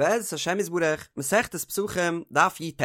בעזרת השם יתברך, מסכת פסחים, דף י"ט.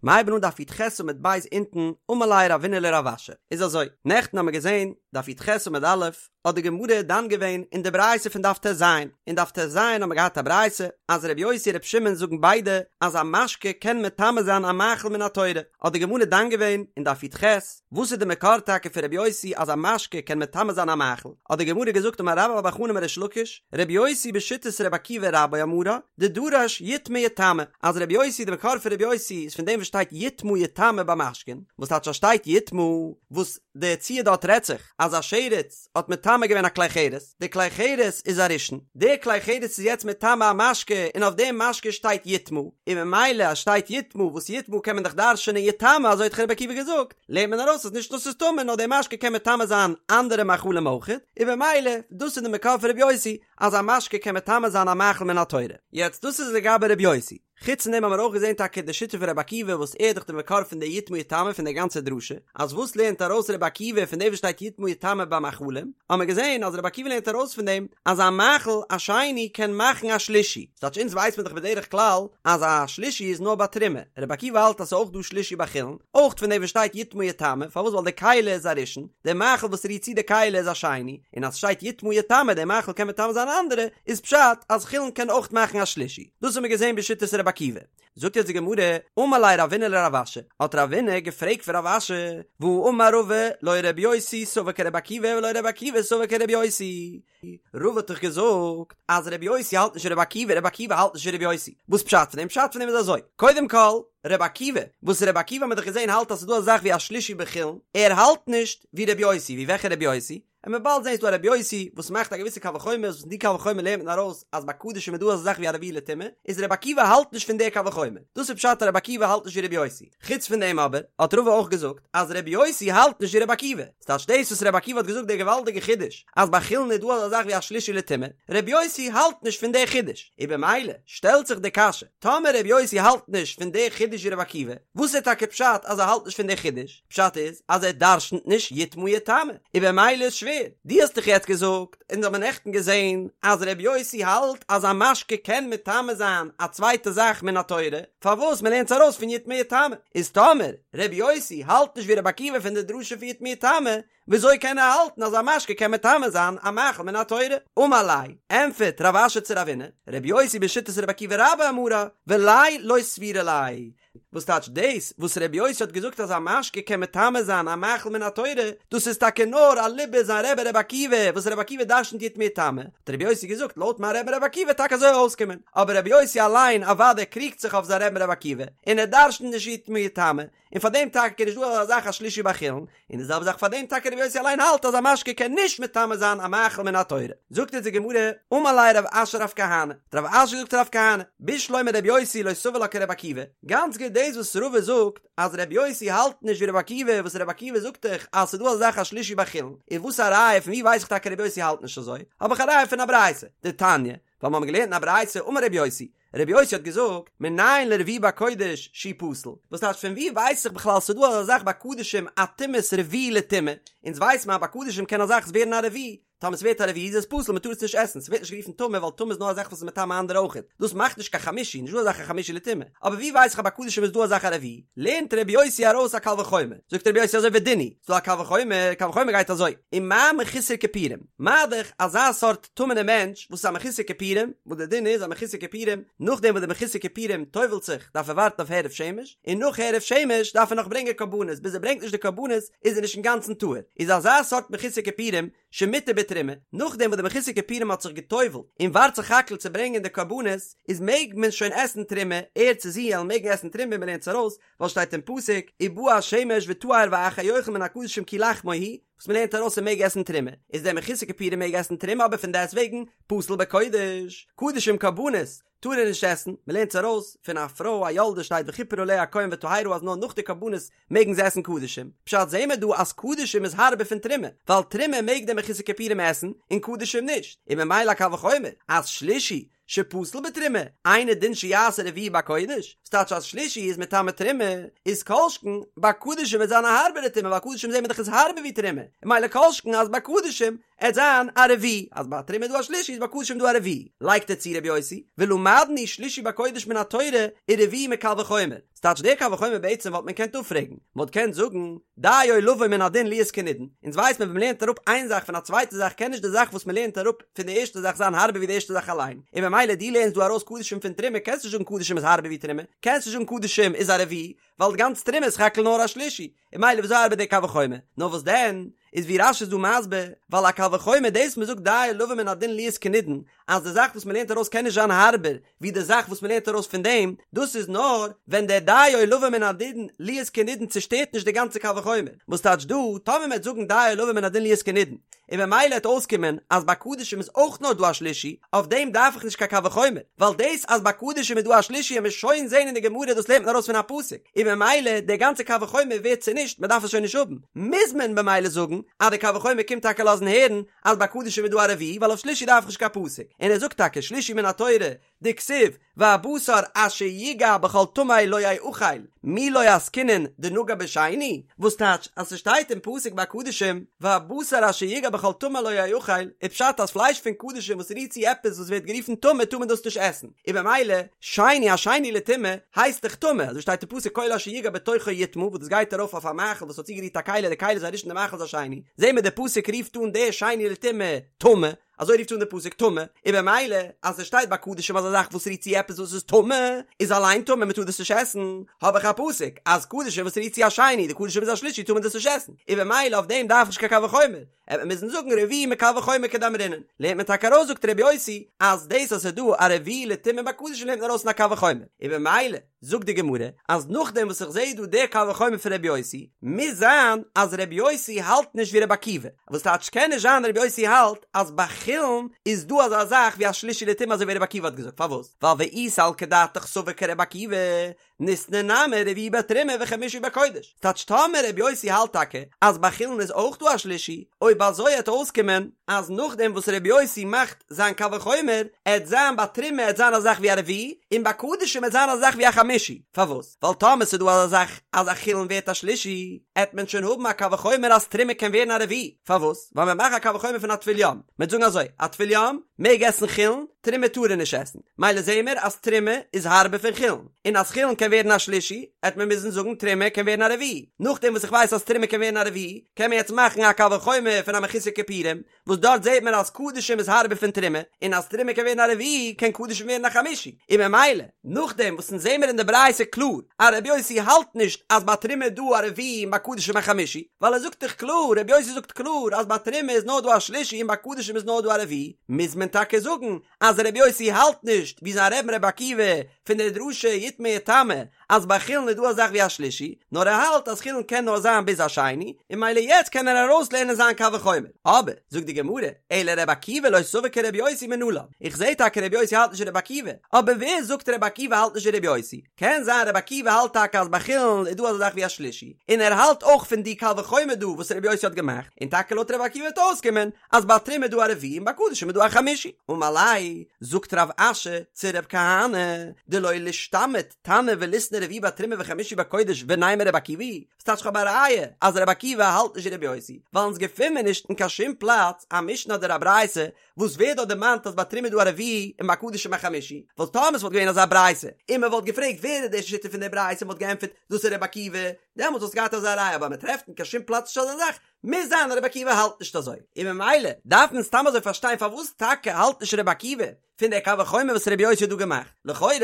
מ'הייבן אן דף י"ח עמוד ב' אונטן, אמר ליה רבינא לרב אשי. איז אזוי, נעכטן האמיר געזען, דף י"ח עמוד א', האט די גמרא דן געווען אין די ברייתא פון דף ט"ז. אין דף ט"ז האמיר געהאט א ברייתא, אז ר' יוסי און ר' שמעון זאגן ביידע אז א משקה קען מטמא זיין א מאכל מן התורה. האט די גמרא דן געווען אין דף י"ח, וואס איז די מקור טאקע פון ר' יוסי אז א משקה קען מטמא זיין א מאכל? האט די גמרא געזאגט אמר רבה בר בר חנה אמר ריש לקיש, ר' יוסי בשיטת ר' עקיבא רבו אמרה, דדרש יטמא יטמא, אז ר' יוסי די מקור פון ר' יוסי איז פון דעם וואס שטייט יטמא יטמא ביי משקין, וואס טייטש אז שטייט יטמא, וואס די ציור דארט רעדט זיך אז א שרץ האט מטמא געווען א כלי חרס, די כלי חרס איז א ראשון, די כלי חרס איז יעצט מטמא א משקה און אויף דעם משקה שטייט יטמא, און ממילא אז שטייט יטמא וואס יטמא קען מען דאך דרש'ענען יטמא אזוי האט דאך רבי עקיבא געזאגט, לערנט מען ארויס אז נישט נאר ס'איז טמא נאר די משקה קען מטמא זיין אנדערע מאכלים אויכעט, און במילא דאס איז די מקור פון רבי יוסי אז א משקה קען מטמא זיין א מאכל מן התורה. יעצט דאס איז לגבי רבי יוסי. חוץ פון דעם האבן מיר אויך געזען טאקע די שיטה פון רבי עקיבא וואס ער איז דאך די מקור פון די יטמא יטמא פון די גאנצע דרשה, אז וואס לערנט ארויס רבי עקיבא פון דעם וואס שטייט יטמא יטמא ביי מאכלים, האבן מיר געזען אז רבי עקיבא לערנט ארויס פון דעם אז א מאכל א שני קען מאכן א שלישי, ס'טייטש אונז ווייסט מען דאך בדרך כלל אז א שלישי איז נאר ביי תרומה, רבי עקיבא האלט אז ס'איז אויך דא שלישי ביי חולין, אויך פון דעם וואס שטייט יטמא יטמא, פארוואס ווייל די כלי איז א ראשון, די מאכל וואס רירט צו די כלי איז א שני, און אז ס'שטייט יטמא יטמא די מאכל קען מטמא זיין אנדערע, איז פשט אז חולין קען אויך מאכן א שלישי. דאס האבן מיר געזען בשיטת רבי עקיבא. זאגט יעצט די גמרא, אמר ליה רבינא לרב אשי, האט רבינא געפרעגט פון רב אשי, והאמר רבא, לא רבי יוסי סבר כרבי עקיבא ולא רבי עקיבא סבר כרבי יוסי. רבא האט דאך געזאגט אז רבי יוסי האלט נישט ווי רבי עקיבא, רבי עקיבא האלט נישט ווי רבי יוסי. וואס פשט פון דעם? פשט פון דעם איז אזוי, קודם כל, רבי עקיבא, וואס רבי עקיבא האט מען דאך געזען האלט אז ס'איז דא אזא זאך ווי א שלישי בחולין, ער האלט נישט ווי רבי יוסי, ווי וועלכע רבי יוסי? און מ'וועט באלד זען ס'דא א רבי יוסי וואס מאכט א געוויסע קל וחומר וואס פון די קל וחומר לערנט מען ארויס אז ביי קדשים איז דא אזא זאך ווי א רביעי לטומאה, איז רבי עקיבא האלט נישט פון די קל וחומר, דאס איז פשט אז רבי עקיבא האלט נישט ווי רבי יוסי, חוץ פון דעם אבער האט רבא אויך געזאגט אז רבי יוסי האלט נישט ווי רבי עקיבא, ס'טייטש דאס וואס רבי עקיבא האט געזאגט די געוואלדיגע חידוש אז ביי חולין איז דא אזא זאך ווי א שלישי לטומאה, רבי יוסי האלט נישט פון די חידוש, און במילא שטעלט זיך די קשיא, טאמער רבי יוסי האלט נישט פון די חידוש ווי רבי עקיבא, וואס איז טאקע פשט אז ער האלט נישט פון די חידוש? פשט איז אז ער דרשנ'ט נישט יטמא יטמא, און במילא איז שווער, דו האסט דאך יעצט געזאגט, אונז האבן נעכטן געזען, אז ר' יוסי האלט אז א משקה קען מטמא זיין א צווייטע זאך מן התורה, פארוואס מ'לערנט עס ארויס פון יטמא יטמא, איז טאמער ר' יוסי האלט נישט ווי ר' עקיבא פון די דרשה פון יטמא יטמא, וויאזוי קען ער האלטן אז א משקה קען מטמא זיין א מאכל מן התורה? אמר ליה, ענטפערט רב אשי צו רבינא, ר' יוסי בשיטת ר' עקיבא רבו אמרה, וליה לא סבירא ליה, וואס טייטש דאס וואס רבי יוסי האט געזאגט אז א משקה קען מטמא זיין א מאכל מן התורה, דאס איז טאקע נאר אליבא זיין רבי רבי עקיבא, וואס רבי עקיבא דרשנ'ט יטמא יטמא, האט רבי יוסי געזאגט לויט מיין רבי רבי עקיבא וועט טאקע אזוי אויסקומען, אבער רבי יוסי אליין אוודאי קריגט זיך אויף זיין רבי רבי עקיבא, און ער דרשנ'ט נישט יטמא יטמא, און פאר דעם טאקע איז נישט דא אזא זאך א שלישי בחולין, און די זעלבע זאך פאר דעם טאקע רבי יוסי אליין האלט אז א משקה קען נישט מטמא זיין א מאכל מן התורה. זאגט אונז די גמרא, אמר ליה רב אשי לרב כהנא, האט רב אשי געזאגט צו רב כהנא, בשלמא רבי יוסי לא סבר לה כרבי עקיבא, גאנץ גוט דאס וואס רבא זאגט אז רבי יוסי האלט נישט ווי רבי עקיבא, וואס רבי עקיבא זאגט דאך אז ס'איז דא אזא זאך א שלישי בחולין, און וואס א ראיה פון ווי ווייס איך טאקע רבי יוסי האלט נישט אזוי, האב איך א ראיה פון א ברייתא, דתניא, ווייל מיר האבן געלערנט אין א ברייתא אמר רבי יוסי, רבי יוסי האט געזאגט, מנין לרביעי בקודש שהוא פסול, וואס טייטש פון ווי ווייס איך בכלל ס'דא אזא זאך ביי קדשים א טומאת רביעי לטומאה, אונז ווייס מען אז ביי קדשים קען א זאך ווערן א רביעי, טאמער ס'ווערט א רביעי איז עס פסול מ'טאר עס נישט עסן, ס'ווערט נישט גערופן טמא ווייל טמא איז נאר א זאך וואס איז מטמא אנדערע אויכעט, דאס מאכט נישט קיין חמישי, נישט דא אזא זאך א חמישי לטומאה, אבער ווי ווייס איך אז ביי קדשים איז דא אזא זאך א רביעי, לערנט רבי יוסי ארויס א קל וחומר, זאגט רבי יוסי אזוי ודין הוא, ס'דא א קל וחומר, קל וחומר גייט אזוי, ומה מחוסר כיפורים, מה דאך אזא סארט טמא'נע מענטש וואס איז א מחוסר כיפורים, וואס די דין איז א מחוסר כיפורים, נאכדעם וואס די מחוסר כיפורים טובל'ט זיך דארף ער ווארטן אויף הערב שמש, און נאך הערב שמש דארף ער נאך ברענגען קרבנות, ביז ער ברענגט נישט די קרבנות איז ער נישט אינגאנצן טהור, איז אזא סארט מחוסר כיפורים שמותר בתרומה, נאכדעם וואס די מחוסר כיפורים האט זיך געטובל'ט און ווארט סך הכל צו ברענגען די קרבנות, איז מעג מען שוין עסן תרומה, ער צו זי וועלן מעגן עסן תרומה, מען לערנט עס ארויס, ווייל שטייט אין פסוק, ובא השמש וטהר ואחר יאכל מן הקדשים כי לחמו הוא, וואס מען לערנט ארויס ער מעג עסן תרומה, איז דער מחוסר כיפורים מעג עסן תרומה אבער פון דעסט וועגן פסול בקודש, קדשים קרבנות טאר ער נישט עסן, מען לערנט עס ארויס פון א פרוי א יולדת שטייט וכפר עליה הכהן וטהרה אז נאר נאך די קרבנות מעגן זיי עסן קדשים, פשט זעהן מיר דא אז קדשים איז הארבער פון תרומה, ווייל תרומה מעג דער מחוסר כיפורים עסן און קדשים נישט, און ממילא א קל וחומר אז שלישי. שפסול בתרומה, אינו דין שיעשה רביעי בקודש, ס'טייטש אז שלישי איז מטמא תרומה, איז כל שכן ביי קדשים וועט זיין א הארבערע טומאה ווייל קדשים זעהן מיר דאך איז הארבער ווי תרומה, און ממילא כל שכן אז ביי קדשים עט זיין א רביעי, אז ביי תרומה איז דא א שלישי איז ביי קדשים דא א רביעי, לייגט ער צו רבי יוסי, ולמדנו שלישי בקודש מן התורה ורביעי מקל וחומר, ס'טייטש דער קל וחומר בעצם וואלט מען געקענט אפפרעגן, מ'וואלט געקענט זאגן, דיו לבוא מן הדין להיות כנידון, אונז ווייסט מען ווען מ'לערנט אראפ איין זאך פון א צווייטע זאך קען נישט די זאך וואס מ'לערנט אראפ פון די ערשטע זאך זיין הארבער ווי די ערשטע זאך אליין, און ממילא דו לערנסט דא ארויס קדשים פון תרומה קענסט נישט זאגן קדשים איז הארבער ווי תרומה, קענסט נישט זאגן קדשים איז א רביעי, ווייל די גאנץ תרומה איז סך הכל נאר א שלישי, און ממילא וויאזוי ארבעט דער קל וחומר? נאר וואס דען, איז ווי רש"י איז דא מסביר, ווייל א קל וחומר דאס מ'זאגט דיו לבוא מן הדין להיות כנידון, אז די זאך וואס מ'לערנט ארויס קען נישט זיין הארבער ווי די זאך וואס מ'לערנט ארויס פון דעם, דאס איז נאר ווען דער דיו לבוא מן הדין להיות כנידון צושטערט נישט די גאנצע קל וחומר, וואס טייטש דא, טאמער מ'עט זאגן דיו לבוא מן הדין להיות כנידון, און במילא העט אויסקומען אז ביי קדשים איז אויך נאר דא א שלישי, אויף דעם דארף איך נישט קיין קל וחומר, ווייל דאס אז ביי קדשים איז דא א שלישי העמיר שוין זעהן אין די גמרא דאס לערנט מען ארויס פון א פסוק, און במילא דער גאנצער קל וחומר ווערט צונישט מען דארף עס שוין נישט האבן, מוז מען במילא זאגן אז די קל וחומר קומט טאקע לאזן הערן אז ביי קדשים איז דא א רביעי ווייל אויף שלישי דארף איך נישט קיין פסוק, און ער זאגט טאקע שלישי מן התורה דכתיב והבשר אשר יגע בכל טמא לא יאכל, מי לא עסקינן דנגע בשני, וואס טייטש אז ס'שטייט אין פסוק ביי קדשים והבשר אשר יגע בכל טמא לא יאכל, איז פשט אז פלייש פון קדשים וואס רירט צו עפעס וואס ווערט גערופן טמא טאר מען דאס נישט עסן, און במילא שני א שני לטומאה הייסט דאך טמא, אזוי שטייט אין פסוק כל אשר יגע בתוכו יטמא וואס דאס גייט ארויף אויף א מאכל וואס האט צוגערירט א כלי די כלי איז א ראשון די מאכל איז א שני, זעהן מיר די פסוק רופט אן די שני לטומאה טמא, אזוי רופט אן די פסוק טמא, און במילא אז עס שטייט ביי קדשים אז א זאך וואס רירט צו עפעס וואס איז טמא איז אליין טמא מען טאר דאס נישט עסן, האב איך א פסוק אז קדשים וואס רירט צו א שני, די קדשים איז א שלישי טאר מען דאס נישט עסן, און במילא אויף דעם דארף איך נישט קיין קל וחומר, עט מען מוזן זאגן רביעי מקל וחומר כדאמרינן, לערנט מען טאקע ארויס זאגט ר' יוסי אז דאס אז עס איז דא א רביעי לטומאה ביי קדשים לערנט מען ארויס פון א קל וחומר, און במילא. זאגט די גמרא אז נאכדעם וואס איך זעה דא די קל וחומר פון רבי יוסי, מוז זיין אז רבי יוסי האלט נישט ווי רבי עקיבא, וואס טייטש קען נישט זיין רבי יוסי האלט אז ביי חולין איז דא אזא זאך ווי א שלישי לטומאה אזוי ווי רבי עקיבא האט געזאגט, פארוואס? ווייל ואי סלקא דעתך סבר כרבי עקיבא, ניתני נמי רביעי בתרומה וחמישי בקודש, ס'טייטש טאמער רבי יוסי האלט טאקע אז ביי חולין איז אויך דא א שלישי, אויב אזוי עט אויסקומען אז נאכדעם וואס רבי יוסי מאכט זיין קל וחומר, עט זיין ביי תרומה עט זיין א זאך ווי א רביעי, און ביי קדשים עט זיין א זאך ווי א חמישי, פארוואס? ווייל טאמער ס'איז דא אזא זאך אז א חולין ווערט א שלישי, עט מען שוין האבן א קל וחומר אז תרומה קען ווערן א רביעי, פארוואס? ווייל מען מאכט א קל וחומר פון א טבול יום, מען וועט זאגן אזוי, א טבול יום מעג עסן חולין, תרומה טאר ער נישט עסן, מילא זעהן מיר אז תרומה איז הארבער פון חולין, און אז חולין קען ווערן א שלישי, עט מען מוזן זאגן תרומה קען ווערן א רביעי, נאכדעם וואס איך ווייס אז תרומה קען ווערן א רביעי, קען מען יעצט מאכן א קל וחומר פון א מחוסר כיפורים, וואס דארט זעט מען אז קדשים איז הארבער פון תרומה, און אז תרומה קען ווערן א רביעי קען קדשים ווערן א חמישי, און ממילא נאכדעם וואס אונז זעמער אין די ברייתא קלאר אז רבי יוסי האלט נישט אז ביי תרומה איז דא א רביעי און ביי קדשים א חמישי, ווייל ער זאגט דאך קלאר, רבי יוסי זאגט קלאר אז ביי תרומה איז נאר דא א שלישי און ביי קדשים איז נאר דא א רביעי, מוז מען טאקע זאגן אז רבי יוסי האלט נישט ווי זיין רבי'ן רבי עקיבא פון די דרשה יטמא יטמא אז ביי חולין איז דא א זאך ווי א שלישי, נאר ער האלט אז חולין קען נאר זיין ביז א שני, און מילא יעצט קען ער ארויסלערנען זיין קל וחומר. אבער, זאגט די גמרא, אלא רבי עקיבא לא סבר כרבי יוסי מנלן, איך זעה טאקע רבי יוסי האלט נישט ווי רבי עקיבא, אבער ווער זאגט רבי עקיבא האלט נישט ווי רבי יוסי? קען זיין רבי עקיבא האלט טאקע אז ביי חולין איז דא אזא זאך ווי א שלישי, און ער האלט אויך פון די קל וחומר דא וואס רבי יוסי האט געמאכט, און טאקע לויט רבי עקיבא וועט אויסקומען אז ביי תרומה איז דא א רביעי און ביי קדשים איז דא א חמישי. אמר ליה, זאגט רב אשי צו רב כהנא, דלא לישתמיט תנא וליתני רביעי בתרומה וחמישי בקודש ונימא רבי עקיבא היא, ס'טייטש כ'האב א ראיה אז רבי עקיבא האלט נישט ווי רבי יוסי, ווייל אונז געפין מיר נישט אין קיין שום פלאץ א משנה אדער א ברייתא וואס ווערט דארט דערמאנט אז ביי תרומה איז דא א רביעי און ביי קדשים א חמישי, ווייל טאמער ס'וואלט געווען אזא ברייתא און מ'וואלט געפרעגט ווער איז די שיטה פון די ברייתא און מ'וואלט געענטפערט דאס איז רבי עקיבא, דעמאלטס וואלסטו געהאט אזא ראיה אבער מ'טרעפט אין קיין שום פלאץ נישט אזא זאך, מוז זיין אז רבי עקיבא האלט נישט אזוי, און ממילא דארף מען סתם אזוי פארשטיין פארוואס טאקע האלט נישט רבי עקיבא פון דער קל וחומר וואס רבי יוסי האט דא געמאכט, לכאורה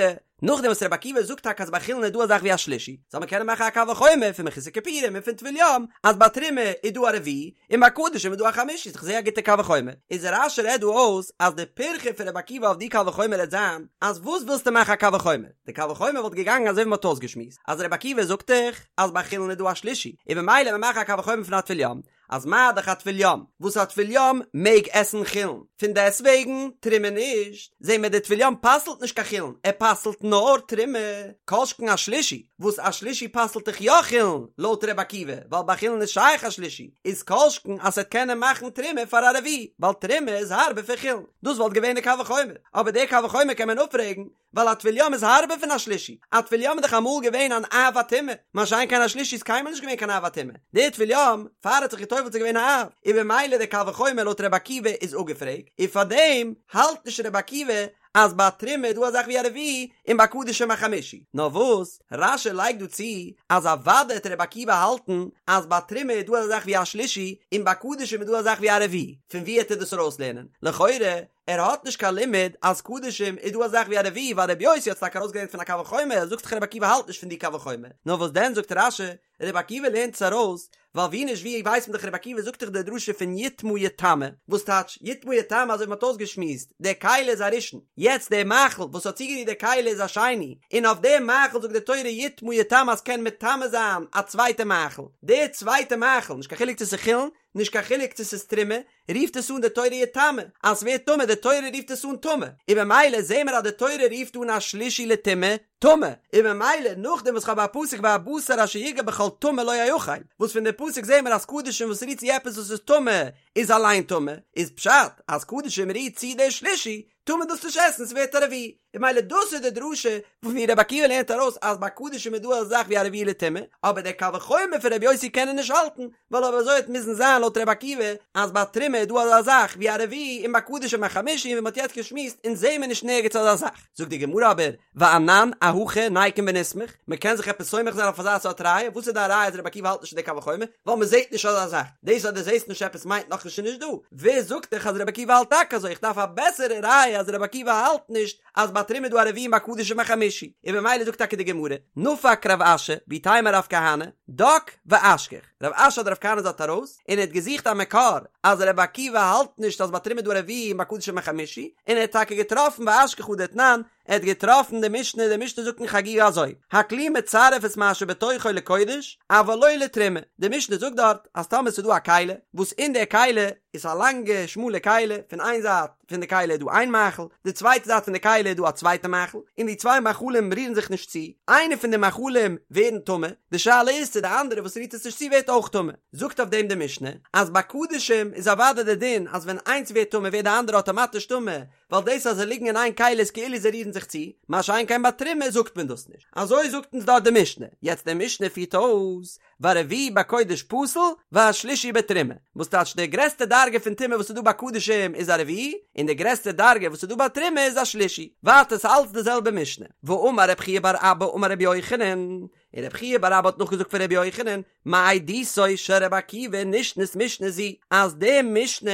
נאכדעם וואס רבי עקיבא זאגט טאקע אז ביי חולין איז דא א זאך ווי א שלישי, זאל מען קענען מאכן א קל וחומר פון מחוסר כיפורים און פון טבול יום אז ביי תרומה איז דא א רביעי און ביי קדשים איז דא א חמישי, איז דאך זייער א גוטע קל וחומר. איז רש"י רעדט דא אויס אז די פירכא פון רבי עקיבא אויף די קל וחומר העט זיין אז וואס ווילסטו מאכן א קל וחומר? די קל וחומר וואלט געגאנגען אזוי ווי מ'האט אויסגעשמועסט אז רבי עקיבא זאגט דאך אז ביי חולין איז דא א שלישי און ממילא מען מאכן א קל וחומר פון א טבול יום. אז מה דאך א טבול יום, וואס א טבול יום מעג עסן חולין, פון דעסוועגן תרומה נישט, זעהן מיר די טבול יום פסל'ט נישט קיין חולין, ער פסל'ט נאר תרומה, כל שכן א שלישי, וואס א שלישי פסל'ט דאך יא חולין, לויט ר' עקיבא, ווייל ביי חולין איז שייך א שלישי, איז כל שכן אז ס'עט קענען מאכן תרומה פאר א רביעי, ווייל תרומה איז הארבער פון חולין, דאס וואלט געווען די קל וחומר, אבער די קל וחומר קען מען אפפרעגן, ווייל א טבול יום איז הארבער פון א שלישי, א טבול יום איז דאך אמאל געווען אן אב הטומאה, מה שאין כן א שלישי איז קיינמאל נישט געווען קיין אב הטומאה, דער טבול יום, פאר ער האט זיך געטובלט איז געווען א אב, און במילא דער קל וחומר לויט ר' עקיבא איז אפגעפרעגט, און פארדעם האלט נישט ר' עקיבא אז ביי תרומה איז דא א זאך ווי א רביעי און ביי קדשים א חמישי, נאר וואס רש"י לייגט דא צו אז אוודאי העט ר' עקיבא האלטן אז ביי תרומה איז דא אזא זאך ווי א שלישי און ביי קדשים איז דא א זאך ווי א רביעי, פון וואו העט ער דאס ארויסלערנען? לכאורה ער האט נישט קיין לימוד אז קדשים איז דא א זאך ווי א רביעי ווייל רבי יוסי האט עס טאקע ארויסגעלערנט פון א קל וחומר זאגסט דאך רבי עקיבא האלט נישט פון די קל וחומר נאר וואס דען זאגט רש"י רבי עקיבא לערנט עס ארויס ווייל ווי נישט ווי ווייסט מען דאך רבי עקיבא זאגט דאך די דרשה פון יטמא יטמא וואס טייטש יטמא יטמא אזוי ווי מ'האט אויסגעשמועסט די כלי איז א ראשון יעצט די מאכל וואס האט צוגערירט די כלי איז א שני און אויף די מאכל זאגט די תורה יטמא יטמא אז קען מטמא זיין א צווייטע מאכל די צווייטע מאכל נישט קיין חילוק צו ס'איז חולין נישט קיין חילוק צו ס'איז תרומה רופט עס אן די תורה יטמא, אז ס'ווערט טמא, די תורה רופט עס אן טמא, און במילא זעהן מיר אז די תורה רופט אן א שלישי לטומאה, טמא, און במילא נאכדעם וואס כ'האב א פסוק והבשר אשר יגע בכל טמא לא יאכל, וואס פון די פסוק זעהן מיר אז קדשים וואס רירט צו עפעס וואס איז טמא איז אליין טמא, איז פשט אז קדשים רירט צו די שלישי, טאר מען דאס נישט עסן, ס'ווערט א רביעי, און במילא דאס איז די דרשה פון ווי רבי עקיבא לערנט ארויס אז ביי קדשים איז דא אזא זאך ווי א רביעי לטומאה, אבער דער קל וחומר פון רבי יוסי קען ער נישט האלטן, ווייל אויב אזוי וועט מוזן זיין לויט רבי עקיבא אז ביי תרומה איז דא אזא זאך ווי א רביעי און ביי קדשים א חמישי און ווי מ'האט יעצט געשמועסט אונז זעהן מיר נישט נערגעץ אזא זאך. זאגט די גמרא אבער, ואנן אהכי ניקום ונסמוך, מ'קען זיך עפעס סומך זיין אויף אזא סארט ראיה, וואס איז די ראיה אז רבי עקיבא האלט נישט אין די קל וחומר? ווייל מ'זעהט נישט אזא זאך, דאס אז דו זעהסט נישט עפעס מיינט נאכנישט ס'איז נישט דא, ווער זאגט דיך אז רבי עקיבא האלט טאקע אזוי, איך דארף א בעסערע ראיה אז רבי עקיבא האלט נישט אז ביי תרומה איז דא א רביעי און ביי קדשים א חמישי, און במילא זאגט טאקע די גמרא, נפק רב אשי, ואיתימא רב כהנא, דק ואשכח, רב אשי אדער רב כהנא איז דארט ארויס, און ער האט געזוכט א מקור אז רבי עקיבא האלט נישט אז ביי תרומה איז דא א רביעי און ביי קדשים א חמישי, און ער האט טאקע געטראפן ואשכח הא דתנן, ער האט געטראפן די משנה, די משנה זאגט אין חגיגה אזוי, הכלי מצרף את מה שבתוכו לקודש, אבל לא לתרומה, די משנה זאגט דארט אז טאמער ס'איז דא א כלי, וואס אין די כלי איז א לאנגע שמאלע כלי, פון איין זייט פון די כלי איז דא איין מאכל, די צווייטע זייט פון די כלי איז דא א צווייטע מאכל, און די צוויי מאכלים רירן זיך נישט צו, איינע פון די מאכלים ווערן טמא, די שאלה איז צו די אנדערע וואס רירט עס נישט צו ווערט אויך טמא, זאגט אויף דעם די משנה, אז ביי קדשים איז אוודאי די דין אז ווען איינס ווערט טמא ווערט די אנדערע אטאמאטיש טמא, ווייל דאס אז זיי ליגן אין איין כלי איז כאילו זיי רירן זיך צו, מה שאין כן ביי תרומה זאגט מען דאס נישט. אזוי זאגט אונז דארט די משנה. יעצט די משנה פירט אויס, והרביעי בקודש פסול, והשלישי בתרומה. וואס טייטש די גרעסטע דרגה פון טומאה וואס איז דא ביי קדשים איז א רביעי, און די גרעסטע דרגה וואס איז דא ביי תרומה איז א שלישי. ווייטער ס'איז אלץ די זעלבע משנה. ואמר רב חייא בר אבא אמר רבי יוחנן, און רב חייא בר אבא האט נאכגעזאגט פון רבי יוחנן, מעדותו של רבי עקיבא נשנית משנה זו, אז די משנה,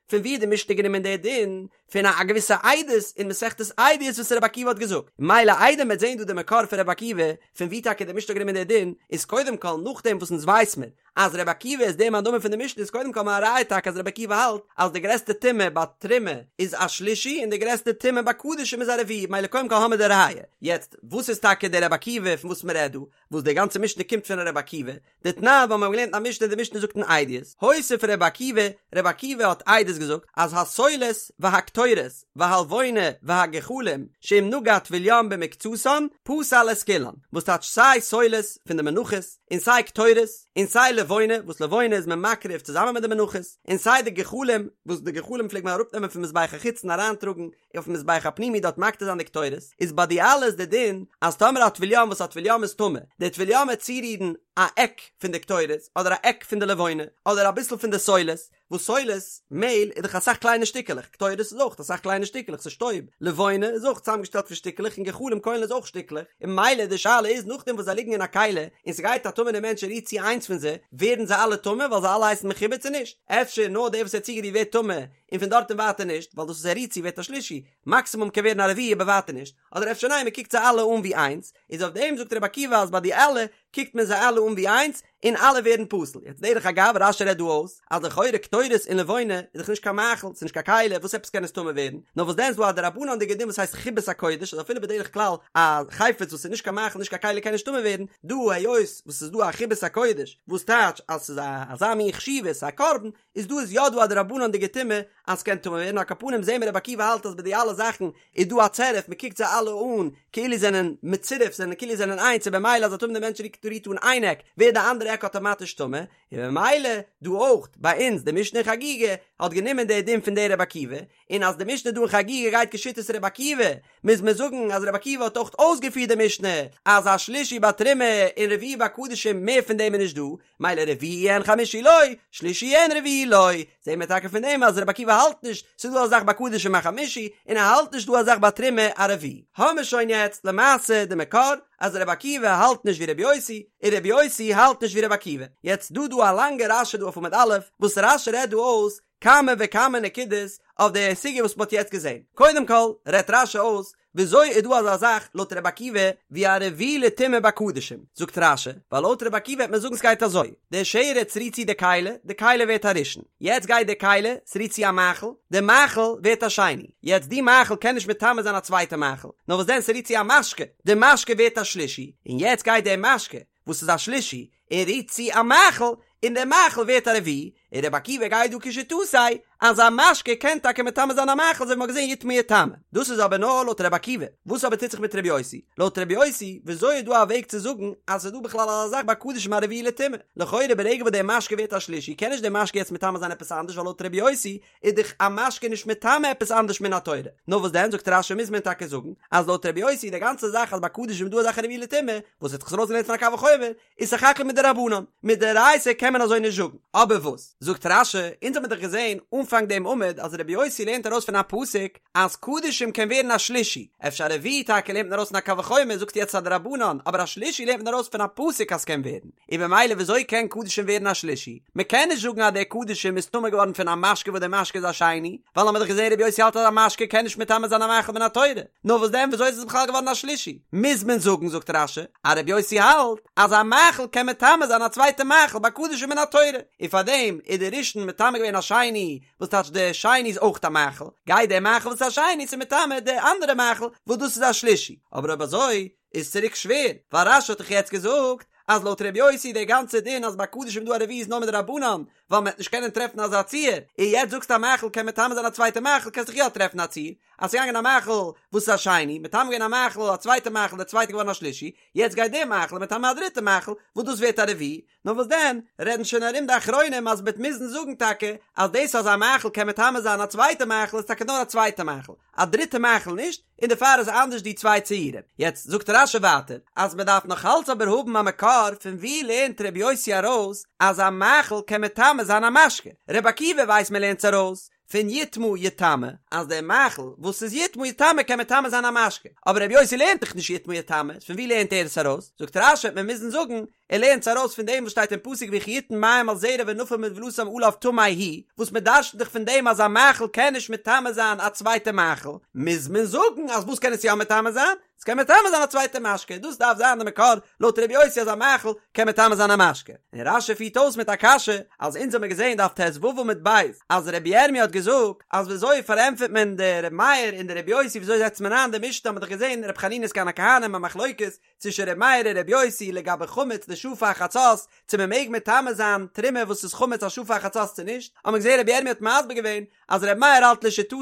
פון וואו האט די משנה גענומען די דין? פון א געוויסע עדות אין מסכת עדיות וואס רבי עקיבא האט געזאגט, מילא איידער מ'וועט זען דא די מקור פון רבי עקיבא, פון וואו טאקע די משנה האט גענומען די דין, איז קודם כל נאכדעם וואס אונז ווייס מיר אז רבי עקיבא איז דער מאן דאמר פון די משנה איז קודם כל א ראיה טאקע אז רבי עקיבא האלט אז די גרעסטע טומאה ביי תרומה איז א שלישי און די גרעסטע טומאה ביי קדשים איז א רביעי, מילא קודם כל האמיר די ראיה. יעצט וואס איז טאקע דער רבי עקיבא פון וואס מ'רעדט דא? וואס די גאנצע משנה קומט פון רבי עקיבא, דתנן ווייל מיר האבן געלערנט א משנה די משנה זאגט אין עדיות, הוסיף רבי עקיבא, רבי עקיבא האט עדות געזאגט אז הסולת והקטורת והלבונה והגחלים שאם נגע טבול יום במקצתן פסל את כולן, וואס טייטש סיי סולת פון די מנחות און סיי קטורת און סיי לבונה וואס לבונה איז מען מקריב צוזאמען מיט די מנחות און סיי די גחלים וואס די גחלים פלעגט מען אראפנעמען פון מזבח החיצון אריינטראגן אויפן מזבח הפנימי דארט מקטיר זיין די קטורת, איז ביי די אלע איז די דין אז טאמער א טבול יום וואס א טבול יום איז טמא, די טבול יום וועט צורירן א עק פון די קטורת, אדער א עק פון די לבונה, אדער אביסל פון די סולת, וואס סולת, מעהל, איז דאך אסאך קליינע שטיקעלעך, קטורת איז אויך אסאך קליינע שטיקעלעך, ס'איז שטויב, לבונה איז אויך צוזאמגעשטעלט פון שטיקעלעך און גחלים קוילן איז אויך שטיקלעך, און ממילא די שאלה איז נאכדעם וואס זיי ליגן אין א כלי, און ס'גייט א טמא'נער מענטש און רירט צו איינס פון זיי, ווערן זיי אלע טמא ווייל זיי אלע הייסן מחובר צו נישט? אפשר נאר דער וואס ער האט צוגערירט ווערט טמא, און פון דארט און ווייטער נישט, ווייל דאס וואס ער רירט צו ווערט א שלישי, מאקסימום קען ווערן א רביעי אבער ווייטער נישט, אדער אפשר ניין מען קוקט זיי אלע אן ווי איינס, איז אויף דעם זאגט רבי עקיבא אז ביי די אלע. קוקט מען זיי אלע אן ווי איינס, און אלע ווערן פסול. יעצט דרך אגב, רש"י רעדט דא אויס, אז לכאורה קטורת און לבונה איז דאך נישט קיין מאכל, ס'איז נישט קיין כלי, וואס עפעס קען עס טמא ווערן? נאר וואס דען איז דא א דרבנן'דיגע דין וואס הייסט חיבת הקודש, אז אפילו בדרך כלל א חפץ וואס איז נישט קיין מאכל נישט קיין כלי קען נישט טמא ווערן, דא היות וואס ס'איז דא א חיבת הקודש, וואס טייטש אז ס'איז א אזא מין חשיבות, א קרבן, איז דא איז יא דא א דרבנן'דיגע טומאה אז ס'קען טמא ווערן, על כל פנים זעהן מיר רבי עקיבא האלט אז ביי די אלע זאכן איז דא א צירוף, מ'קוקט זיי אלע אן כאילו זענען מצורף, זענען כאילו זענען איינס, און במילא אז א טמא'נע מענטש רירט אן איין עק, ווערט די אנדערע עק אטאמאטיש טמא, און במילא דא אויך ביי אונז די משנה אין חגיגה האט גענומען די דין פון די רבי עקיבא, און אז די משנה דא אין חגיגה גייט כשיטת רבי עקיבא, מוז מען זאגן אז רבי עקיבא האט אויך אויסגעפירט די משנה אז א שלישי בתרומה און רביעי בקדשים מער פון דעם איז נישט דא, מילא רביעי אין חמישי לא, שלישי אין רביעי לא, זעהן מיר טאקע פון דעם אז רבי עקיבא האלט נישט ס'איז דא א זאך ביי קדשים א חמישי און ער האלט נישט דא א זאך ביי תרומה א רביעי. האמיר שוין יעצט למעשה די מקור אז רבי עקיבא האלט נישט ווי רבי יוסי און רבי יוסי האלט נישט ווי רבי עקיבא. יעצט דא דא א לאנגע רש"י דא אויף עמוד א' וואס רש"י רעדט דא אויס כמה וכמה נקודות אויף די סוגיא וואס מ'האט יעצט געזען. קודם כל רעדט רש"י אויס וויאזוי איז דא אזא זאך לויט רבי עקיבא ווי א רביעי לטומאה בקדשים? זאגט רש"י, ווייל לויט רבי עקיבא וועט מען זאגן ס'גייט אזוי, די שרץ רירט צו די כלי, די כלי ווערט א ראשון, יעצט גייט די כלי, ס'רירט צו א מאכל, די מאכל ווערט א שני, יעצט די מאכל קען נישט מטמא זיין א צווייטע מאכל, נאר וואס דען ס'רירט צו א משקה, די משקה ווערט א שלישי, און יעצט גייט די משקה, וואס איז א שלישי, און רירט צו א מאכל, און דער מאכל ווערט א רביעי, און רבי עקיבא גייט דא כשיטתו אז א משקה קען טאקע מטמא זיין א מאכל אזוי ווי מ'האט געזען יטמא יטמא. דאס איז אבער נאר לויט רבי עקיבא. וואס אבער טוט זיך מיט רבי יוסי? לויט רבי יוסי, וויאזוי איז דא א וועג צו זאגן אז ס'איז דא בכלל אזא זאך ביי קדשים א רביעי לטומאה? לכאורה ברגע וואס דער משקה ווערט א שלישי קען נישט דער משקה יעצט מטמא זיין עפעס אנדערש ווייל לויט רבי יוסי איז דאך א משקה נישט מטמא עפעס אנדערש מן התורה. נאר וואס דען זאגט רש"י מוז מען טאקע זאגן אז לויט רבי יוסי די גאנצע זאך אז ביי קדשים איז דא א זאך א רביעי לטומאה וואס האט זיך עס ארויסגעלערנט פון א קל וחומר איז סך הכל מדרבנן, מדאורייתא קען מען אזוי נישט זאגן. אבער וואס זאגט רש"י, אונז האמיר דאך געזען אנפאנג דעם עמוד אז רבי יוסי לערנט ארויס פון א פסוק אז קדשים קען ווערן א שלישי, אפשר א רביעי טאקע לערנט מען ארויס פון א קל וחומר זאגט יעצט א דרבנן, אבער א שלישי לערנט מען ארויס פון א פסוק אז ס'קען ווערן, און במילא וויאזוי קען קדשים ווערן א שלישי? מ'קען נישט זאגן אז דער קדשים איז טמא געווארן פון א משקה וואס דער משקה איז א שני, ווייל האמיר דאך געזען רבי יוסי האלט אז א משקה קען נישט מטמא זיין א מאכל מן התורה. נאר וואס דען וויאזוי איז עס בכלל געווארן א שלישי? מוז מען זאגן זאגט רש"י אז רבי יוסי האלט אז א מאכל קען מטמא זיין א צווייטע מאכל ביי קדשים מן התורה, און פארדעם איז די ראשון מטמא געווען א שני, וואס טייטש די שני איז אויך א מאכל, גייט די מאכל וואס איז א שני צו מטמא די אנדערע מאכל וואס דאס איז א שלישי, אבער אויב אזוי איז צוריק שווער, ווייל רש"י האט דאך יעצט געזאגט אז לויט רבי יוסי די גאנצע דין אז ביי קדשים דא א רביעי איז נאר מדרבנן, ווייל מען וועט נישט קענען טרעפן אזא ציור, און יעצט זאגסטו א מאכל קען מטמא זיין א צווייטע מאכל קענסט דאך יא טרעפן א ציור, אז ס'איז געגאנגען א מאכל וואס איז א שני, מטמא געווען א מאכל א צווייטע מאכל דער צווייטע געווארן א שלישי, יעצט גייט דער מאכל מטמא א דריטע מאכל וואס דאס ווערט א רביעי, נאר וואס דען, רעדן שוין ארום די אחרונים אז מ'וועט מוזן זאגן טאקע אז דאס אז א מאכל קען מטמא זיין א צווייטע מאכל איז טאקע נאר א צווייטע מאכל, א דריטע מאכל נישט, און דערפאר איז אנדערש די צוויי ציורים. יעצט זאגט רש"י ווייטער אז מ'דארף נאך אלץ אבער האבן א מקור פון וואו לערנט ר' יוסי ארויס אז א מאכל קען מטמא זיין א משקה, ר' עקיבא ווייסט מ'לערנט עס ארויס פון יטמא יטמא, אז דער מאכל וואס איז יטמא יטמא קען מטמא זיין א משקה, אבער רבי יוסי לערנט דאך נישט יטמא יטמא, פון וואו לערנט ער עס ארויס? זאגט רש"י וועט מען מוזן זאגן, ער לערנט עס ארויס פון דעם וואס שטייט אין פסוק וכי יתן מים על זרע ונפל מנבלתם עליו טמא הוא, וואס מען דרש'נט דאך פון דעם אז א מאכל קען נישט מטמא זיין א צווייטע מאכל, מוז מען זאגן אז וואס קען עס יא מטמא זיין? עס קען מטמא זיין א צווייטע משקה, דאס דארף זיין די מקור לויט רבי יוסי אז א מאכל קען מטמא זיין א משקה. און רש"י פירט אויס מיט א קשיא, אז אונז האמיר געזען דף ט"ו עמוד ב' אז רבי ירמי' האט געזאגט אז וויאזוי פארענטפערט מען די רבי מאיר און די רבי יוסי וויאזוי זעצט מען איין די משנה האט מען דאך געזען רבי חנינא סגן הכהנים א מחלוקת צווישן רבי מאיר און רבי יוסי לגבי חמץ לשעה פאר חצות צו מען מעג מטמא זיין תרומה וואס איז חמץ א שעה פאר חצות צו נישט, האט מען געזען רבי ירמי' האט מסביר געווען אז רבי מאיר האלט לשיטתו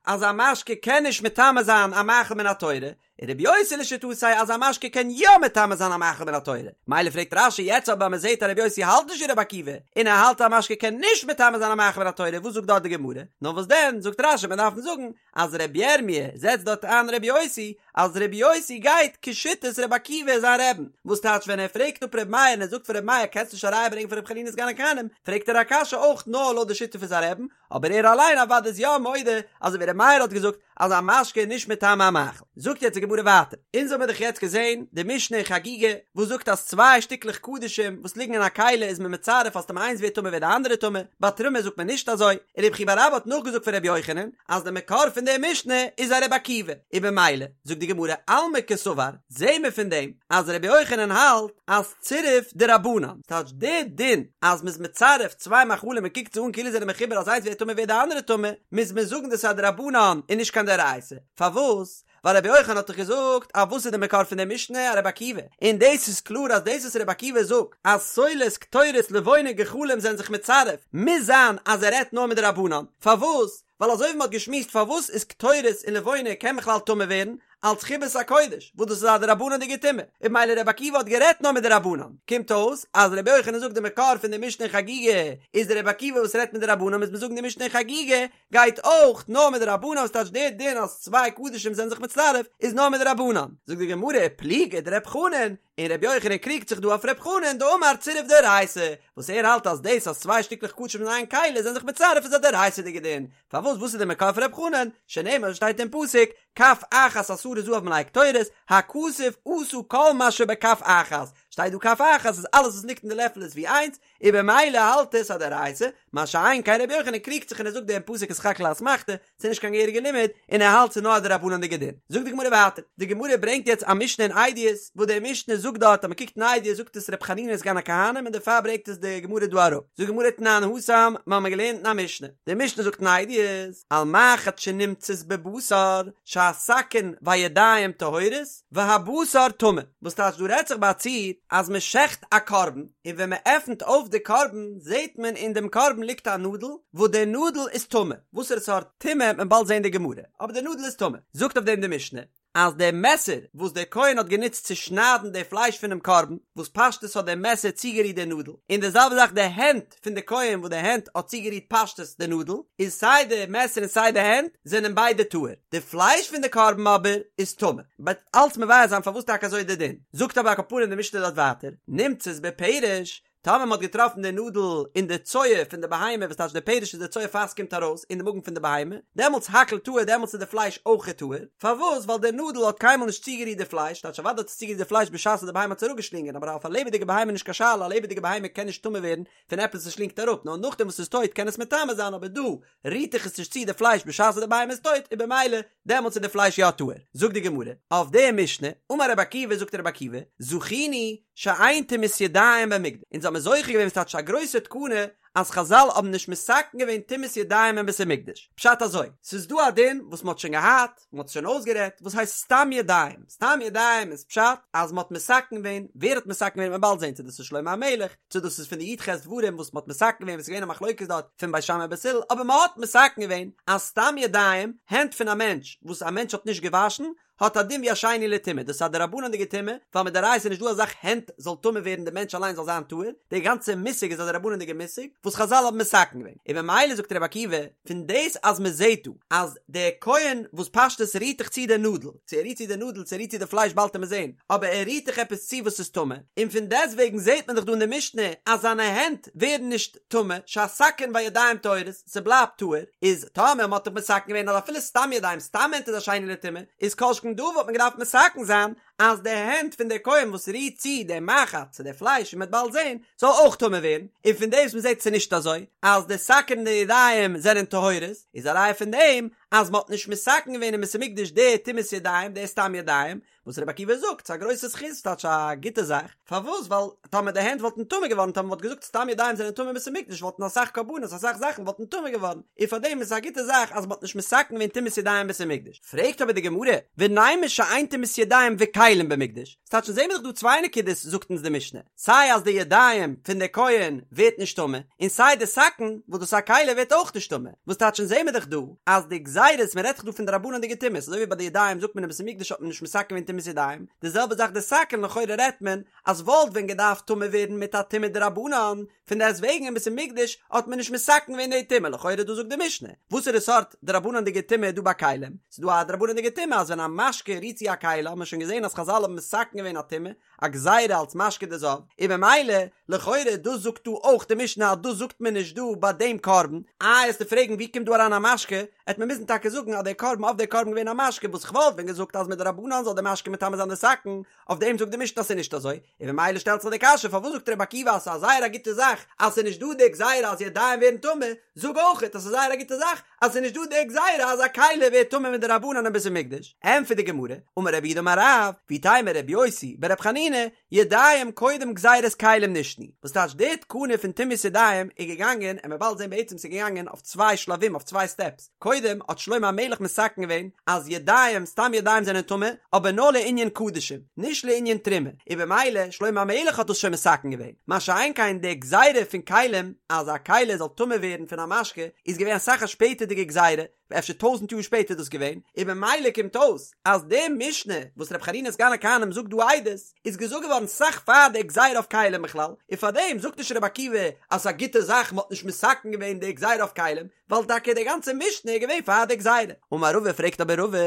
אז א משקה קען נישט מטמא זיין א מאכל מן התורה, און רבי יוסי לשיטתו אז א משקה קען יא מטמא זיין א מאכל מן התורה. מילא פרעגט רש"י יעצט אבער אז מען זעט אז רבי יוסי האלט נישט ווי רבי עקיבא, און ער האלט אז א משקה קען נישט מטמא זיין א מאכל מן התורה, וואס זאגט דארט די גמרא? נאר וואס דען, זאגט רש"י מען דארף זאגן אז רבי ירמי' זעצט דארט איין רבי יוסי, אז רבי יוסי גייט כשיטת רבי עקיבא זיין רעבן, וואס טייטש ווען ער פרעגט אפ רבי מאיר און ער זאגט פאר רבי מאיר קענסט נישט א ראיה ברענגען פון רבי חנינא סגן הכהנים, פרעגט ער א קשיא אויך נאר לויט די שיטה פון זיין רעבן, אבער ער אליין אוודאי איז יא מודה אזוי ווי רבי מאיר האט געזאגט אז א משקה איז נישט מטמא א מאכל. זאגט יעצט די גמרא. גמרא ווייטער, אונז האמיר דאך יעצט געזען די משנה אין חגיגה וואס זאגט אז צוויי שטיקלעך קדשים וואס ליגן אין א כלי איז מען מצרף אז טאמער איינס ווערט טמא ווערט די אנדערע טמא, ביי תרומה זאגט מען נישט אזוי, און רב חייא בר אבא האט נאכגעזאגט פון רבי יוחנן אז די מקור פון די משנה איז א רבי עקיבא, און במילא זאגט די גמרא אלמא קסבר, זעהן מיר פון דעם אז רבי יוחנן האלט אז צירוף דרבנן, ס'טייטש די דין אז מ'איז מצרף צוויי מאכלים און קוקט זיי אן כאילו זיי זענען מחובר אז איינס ווערט טמא ווערט די אנדערע טמא, מוז מען זאגן דאס איז א דרבנן און נישט קיין דאורייתא, פארוואס? ווייל רבי יוחנן האט דאך געזאגט אז וואס איז די מקור פון די משנה א רבי עקיבא, און דאס איז קלאר אז דאס וואס רבי עקיבא זאגט אז סולת קטורת לבונה גחלים זענען זיך מצרף מוז זיין אז ער רעדט נאר מדרבנן, פארוואס? ווייל אזוי ווי מען האט געשמועסט פארוואס איז קטורת און לבונה קען בכלל טמא ווערן אלץ חיבת הקודש וואס דאס איז א דרבנן'דיגע טומאה און במילא רבי עקיבא האט גערעדט נאר מדרבנן קומט אויס אז רבי יוחנן זאגט די מקור פון די משנה אין חגיגה איז די רבי עקיבא וואס רעדט מדרבנן מוז מען זאגן די משנה אין חגיגה גייט אויך נאר מדרבנן וואס טייטש דער דין אז צוויי קדשים זענען זיך מצטרף איז נאר מדרבנן זאגט די גמרא פליגא דרב חנן און רבי יוחנן קריגט זיך דא אויף רב חנן דאמר צירוף דאורייתא, וואס ער האלט אז דאס אז צוויי שטיקלעך קדשים אין איין כלי זענען זיך מצרף איז א דאורייתא'דיגע דין, פארוואס וואס איז די מקור פון רב חנן, שנאמר שטייט אין פסוק, כף אחת עשרה זהב מלאה קטורת, הכתוב עשה כל מה שבכף אחת, שטייט דא כף אחת אז אלעס וואס ליגט אין די לעפל איז ווי איינס, און במילא האלט עס א דאורייתא, מה שאין כן רבי יוחנן קריגט זיך און ער זאגט דעם פסוק איז סך הכל א אסמכתא, ס'איז נישט קיין געהעריגע לימוד, און ער האלט ס'איז נאר א דרבנן'דיגע דין. זאגט די גמרא ווייטער, די גמרא ברענגט יעצט א משנה אין עדיות, וואס די משנה זאגט דארט אז מ'קוקט אין עדיות זאגט עס ר' חנינא סגן הכהנים און דערפאר ברענגט עס די גמרא דא אראפ. זאגט די גמרא תנן התם, מ'האמיר געלערנט אין א משנה, די משנה זאגט אין עדיות, על מחט שנמצאת בבשר, שהסכין והידיים טהורות, והבשר טמא, וואס טייטש דא רעדט זיך ביי א ציור אז מען שעכט א קרבן און ווען מען עפנט אויף די קרבן זעט מען אין דעם קרבן ליגט א נאדל וואס די נאדל איז טמא, וואסערע סארט טומאה וועט מען באלד זען די גמרא, אבער די נאדל איז טמא, זאגט אויף דעם די משנה אז די מעסער וואס דער כהן האט גענוצט צו שניידן די פלייש פונעם קרבן, וואס פשטות האט די מעסער צוגערירט די נאדל, און די זעלבע זאך די הענט פון די כהן וואס די הענט האט צוגערירט פשטות די נאדל, איז סיי די מעסער און סיי די הענט זענען ביידע טהור, די פלייש פון די קרבן אבער איז טמא. מ'וועט אלץ מבאר זיין פארוואס טאקע אזוי איז די דין. זאגט אבער על כל פנים די משנה דארט ווייטער, נמצאת בפרש, טאמער מ'האט געטראפן די נאדל אין די צואה פון די בהמה, וואס טייטש די פרש איז די צואה פאר ס'קומט ארויס אין די מאגן פון די בהמה, דעמאלטס הכל טהור דעמאלטס איז די פלייש אויכעט טהור, פארוואס? ווייל די נאדל האט קיינמאל נישט צוגערירט די פלייש, טייטש אוודאי האט עס צוגערירט די פלייש בשעת די בהמה האט עס אראפגעשלינגען, אבער אויף א לעבעדיגע בהמה איז נישט קיין שאלה, א לעבעדיגע בהמה קען נישט טמא ווערן פון עפעס וואס שלינגט אראפ, נאר נאכדעם וואס ס'איז טויט קען עס מטמא זיין, אבער דא רירט דאך עס נישט צו די פלייש בשעת די בהמה איז טויט, און במילא דעמאלטס איז די פלייש יא טהור. זאגט די גמרא, אויף די משנה, אמר רבי עקיבא זאגט רבי עקיבא, זכינו שאין טומאת ידיים במקדש, אונז האמיר זוכה געווען ס'טייטש א גרויסע תקנה אז חזל האבן נישט מתקן געווען טומאת ידיים אין בית המקדש, פשט אזוי, ס'איז דא א דין וואס מ'האט שוין געהאט, מ'האט עס שוין אויסגערעדט, וואס הייסט סתם ידיים, סתם ידיים איז פשט אז מ'האט מתקן געווען, ווער האט מתקן געווען וועט מען באלד זען צו דאס איז שלמה המלך, צו דאס איז פון די י"ח דברים וואס מ'האט מתקן געווען וואס איז געווען א מחלוקת דארט פון בית שמאי בית הלל, אבער מ'האט מתקן געווען אז סתם ידיים, הענט פון א מענטש וואס א מענטש האט נישט געוואשן, האט א דין ווי א שני לטומאה, דאס איז א דרבנן'דיגע טומאה, ווייל מדאורייתא איז נישט דא אזאך הענט זאל טמא ווערן די מענטש אליין זאל זיין טהור, די גאנצע מושג איז א דרבנן'דיגע מושג וואס חזל האבן מתקן געווען, און ממילא זאגט רבי עקיבא, פון דאס אז מען זעט דא אז דער כהן וואס פשטות רירט דאך צו די נאדל, צו ער רירט צו די נאדל צו ער רירט צו די פלייש באלד וועט מען זען, אבער ער רירט דאך עפעס צו וואס איז טמא, און פון דעסטוועגן זעט מען דאך דא אין די משנה אז זיינע הענט ווערן נישט טמא, שהסכין והידיים טהורות, ס'בלייבט טהור, איז טאמער מ'האט דאך מתקן געווען אז אפילו סתם ידיים סתם הענט איז א שני לטומאה, איז כל שכן דא וואלט מען געדארפט מתקן זיין אז די הענט פון די כהן וואס רירט צו די מחט צו די פלייש ווי מ'וועט באלד זען, זאל אויך טמא ווערן, און פון דעם וואס מ'זעט ס'איז נישט אזוי, אז די סכין און די ידיים זענען טהורות, איז א ראיה פון דעם אז מ'האט נישט מתקן געווען אין בית המקדש די טומאת ידיים, די סתם ידיים, וואס רבי עקיבא זאגט, ס'איז א גרויסע זכות, ס'טייטש א גוטע זאך, פארוואס? ווייל טאמער די הענט וואלטן טמא געווארן, טאמער מ'וואלט געזאגט סתם ידיים זענען טמא אין בית המקדש וואלטן אסאך קרבנות, אסאך זאכן וואלטן טמא געווארן, און פארדעם איז עס א גוטע זאך אז מ'האט נישט מתקן געווען טומאת ידיים אין בית המקדש. פרעגט אבער די גמרא, ונימא שאין טומאת ידיים וכלים במקדש, ס'טייטש אונז זעמיר דאך דא צוויי נקודות זאגט אונז די משנה, סיי אז די ידיים פון די כהן ווערט נישט טמא, און סיי די סכין וואס דאס איז א כלי ווערט אויך נישט טמא, וואס טייטש אונז זעמיר דאך דא אז די גזירות, מען רעדט דאך דא פון דרבנן'דיגע טומאות, אזוי ווי ביי די ידיים זאגט מען אין בית המקדש האט מען נישט מתקן געווען טומאת. טומאת ידיים, די זעלבע זאך די סכין לכאורה רעדט מען אז וואלט ווען געדארפט טמא ווערן מיט א טומאה דרבנן, פון דעסט וועגן אין בית המקדש האט מען נישט מתקן געווען די טומאה, לכאורה דא זאגט די משנה, וואסערע סארט דרבנן'דיגע טומאה איז דא ביי כלים? ס'איז דא א דרבנן'דיגע טומאה אז ווען א משקה רירט צו א כלי האט מען שוין געזען אז חזל האבן מתקן געווען א טומאה, א גזירה אלס משקה דזב, און במילא, לכאורה דאס זאגט דא אויך די משנה אז דאס זאגט מען נישט דא ביי דעם קרבן, איי עסטו פרעגן ווי קומט דא אריין א משקה, עט מען מוזן טאקע זאגן אז דער קרבן אויף דער קרבן געווען א משקה וואס כ'וואלט ווען געזאגט אז מדרבנן זאל דער משקה מטמא זיין די סכין, אויף דעם זאגט די משנה אז ס'איז נישט אזוי, און במילא שטעלט זיך די קשיא פארוואס זאגט רבי עקיבא אז ס'איז א זייער א גוטע זאך אז ס'איז נישט דא די גזירה אז ידיים ווערן טמא, זאג אויכעט אז ס'איז זייער א גוטע זאך אז ס'איז נישט דא די גזירה אז א כלי ווערט טמא מדרבנן אין בית המקדש, ענטפערט די גמרא, אמר רב יהודה אמר רב, ואיתימא רבי יוסי ברבי חנינא, ידיים קודם גזירת כלים נשנו, וואס טייטש די תקנה פון טומאת ידיים איז געגאנגען, און מ'וועט באלד זען בעצם ס'איז געגאנגען אויף צוויי שלבים אויף צוויי סטעפס, קודם האט שלמה המלך מתקן געווען אז ידיים, סתם ידיים זענען טמא, אבער נאר לענין קדשים, נישט לענין תרומה, און במילא שלמה המלך האט דאס שוין מתקן געווען, מה שאין כן די גזירה פון כלים אז א כלי זאל טמא ווערן פון א משקה איז געווען אסאך א שפעטערדיגע גזירה, אפשר טויזנט יאר שפעטער איז דאס געווען, און במילא קומט אויס אז די משנה וואס ר' חנינא סגן הכהנים זאגט דא עדות איז געזאגט געווארן סאך פאר די גזירה אויף כלים בכלל, און פארדעם זאגט נישט ר' עקיבא אז ס'איז א גוטע זאך מ'האט נישט מתקן געווען די גזירה אויף כלים, ווייל טאקע די גאנצע משנה איז געווען פאר די גזירה. אמר רבא פרעגט אבער רבא,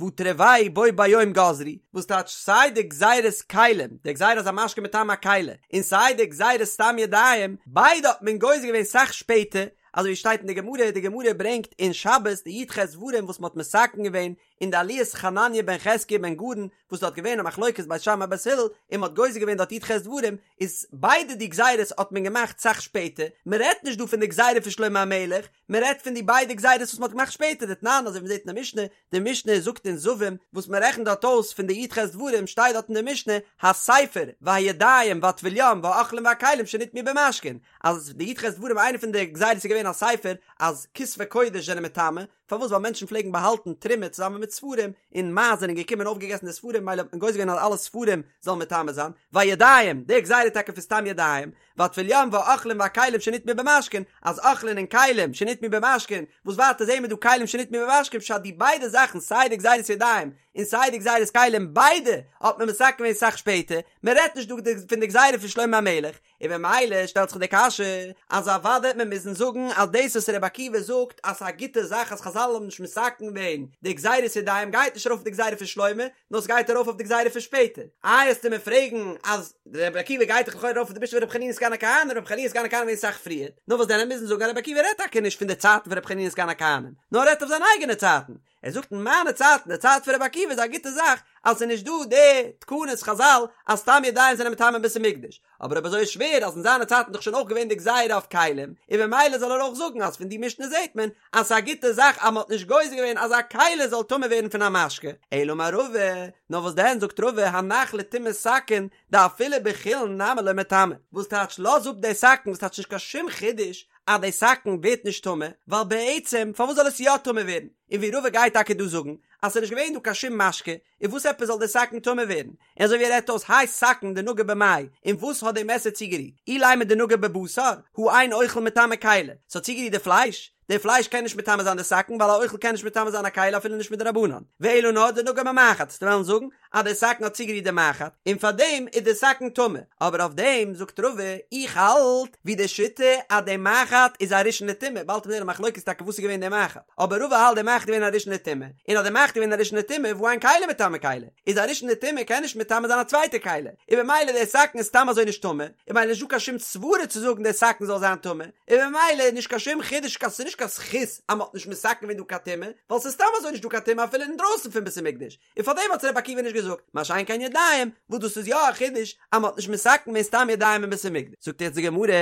והא תרוייהו בו ביום גזרו, וואס טייטש סיי די גזירת כלים, די גזירה אז א משקה מטמא א כלי, און סיי די גזירת סתם ידיים, ביידע האט מען גוזר געווען סאך שפעטער, אזוי ווי שטייט אין די גמרא, די גמרא ברענגט אין שבת די י"ח דברים וואס מען האט מתקן געווען אין די עליית חנניה בן חזקיה בן גרון, וואס דארט געווען א מחלוקת בית שמאי בית הלל, און מען האט גוזר געווען דארט י"ח דברים, איז ביידע די גזירות האט מען געמאכט סאך שפעטער, מען רעדט נישט דא פון די גזירה פון שלמה המלך, מען רעדט פון די ביידע גזירות וואס מען האט געמאכט שפעטער, דתנן אזוי ווי מען זעט אין די משנה, די משנה זאגט אין זבים, וואס מען רעכנט דארט אויס פון די י"ח דברים שטייט דארט אין די משנה, הספר והידיים והטבול יום והאוכלים והכלים שנטמאו במשקין, אז די י"ח דברים איינע פון די גזירות איז געווען הספר אז כתבי קודש זענען מטמא, פארוואס ווייל מענטשן פלעגן באהאלטן תרומה צוזאמען מיט ספרים, און מייז זענען געקומען און אויפגעגעסן די ספרים מילא האט מען גוזר געווען אז אלע ספרים זאלן מטמא זיין, והידיים, די גזירה טאקע פון סתם ידיים, והטבול יום והאוכלים והכלים שנטמאו במשקין, אז אוכלין און כלים שנטמאו במשקין, וואס ווייטער זעהן מיר דא כלים שנטמאו במשקין פשט די ביידע זאכן סיי די גזירת ידיים און סיי די גזירת כלים ביידע האט מען מתקן געווען סאך שפעטער, מען רעדט נישט דא פון די גזירה פון שלמה המלך, און במילא שטעלט זיך די קשיא אז אוודאי וועט מען מוזן זאגן אז דאס וואס רבי עקיבא זאגט אז ס'איז א גוטע זאך אז חזל האבן נישט מתקן געווען די גזירת ידיים גייט נישט ארויף אויף די גזירה פון שלמה נאר ס'גייט ארויף אויף די גזירה פון שפעטער. איי עסטו מיר פרעגן אז רבי עקיבא גייט דאך לכאורה ארויף אויף די משנה פון רבי חנינא סגן הכהנים, רבי חנינא סגן הכהנים געווען אסאך פריער, נאר וואס דען מיר מוזן זאגן אז רבי עקיבא רעדט טאקע נישט פון די צייטן פון רבי חנינא סגן הכהנים נאר ער רעדט אויף זיינע אייגענע צייטן, ער זאגט אין מיינע צייטן, די צייט פון רבי עקיבא איז א גוטע זאך אז ס'איז נישט דא די תקנות חזל אז סתם ידיים זענען מטמא אין בית המקדש, אבער אויב אזוי איז שווער אז אין זיינע צייטן איז דאך שוין אויך געווען די גזירה אויף כלים, און במילא זאל ער אויך זאגן אז פון די משנה זעט מען אז ס'איז א גוטע זאך אז מ'האט נישט גוזר געווען אז א כלי זאל טמא ווערן פון א משקה. אלא אמר רבא, נאר וואס דען זאגט רבא הנח לטומאת סכין דאפילו בחולין נמי לא מטמא, וואס טייטש לאז אפ די סכין וואס טייטש נישט קיין שום חידוש אז די סכין ווערט נישט טמא, ווייל בעצם פארוואס זאל עס יא טמא ווערן, און ווי רבא גייט טאקע דא זאגן אז ס'איז נישט געווען דא קיין שום משקה, און וואס עפעס זאל די סכין טמא ווערן? און אזוי ווי ער רעדט אויס האי סכין דנגע במאי, און וואס האט די מעסער צוגערירט? אילימא דנגע בבשר, הא אין אוכל מטמא כלי, ס'האט צוגערירט די פלייש? די פלייש קען נישט מטמא זיין די סכין ווייל א אוכל קען נישט מטמא זיין א כלי אפילו נישט מדרבנן, ואלא נאר דנגע במחט, וועסטו וועלן זאגן אז די סכין האט צוגערירט די מחט, און פארדעם איז די סכין טמא, אבער אויף דעם זאגט רבא, איך האלט ווי די שיטה אז די מחט איז א ראשון לטומאה, באלד וועט מען זען א מחלוקת טאקע וואס איז געווען די מחט, אבער רבא האלט די מחט איז געווען א ראשון לטומאה, און אז די מחט איז געווען א ראשון לטומאה והא אין כלי מטמא כלי, איז א ראשון לטומאה קען נישט מטמא זיין א צווייטע כלי, און במילא די סכין איז סתם אזוי נישט טמא, און במילא נישט דא קיין שום סברה צו זאגן די סכין זאל זיין טמא, און במילא איז נישט קיין שום חידוש קיין ס'איז נישט קיין זכות אז מ'האט נישט מתקן געווען דא קיין טומאה, ווייל ס'איז סתם אזוי נישט דא קיין טומאה אפילו אינדרויסן פון בית המקדש, און פארדעם האט רבי עקיבא נישט געזאגט, מה שאין כן ידיים, וואס דאס איז יא א חידוש אז מ'האט נישט מתקן געווען סתם ידיים אין בית המקדש. זאגט יעצט די גמרא,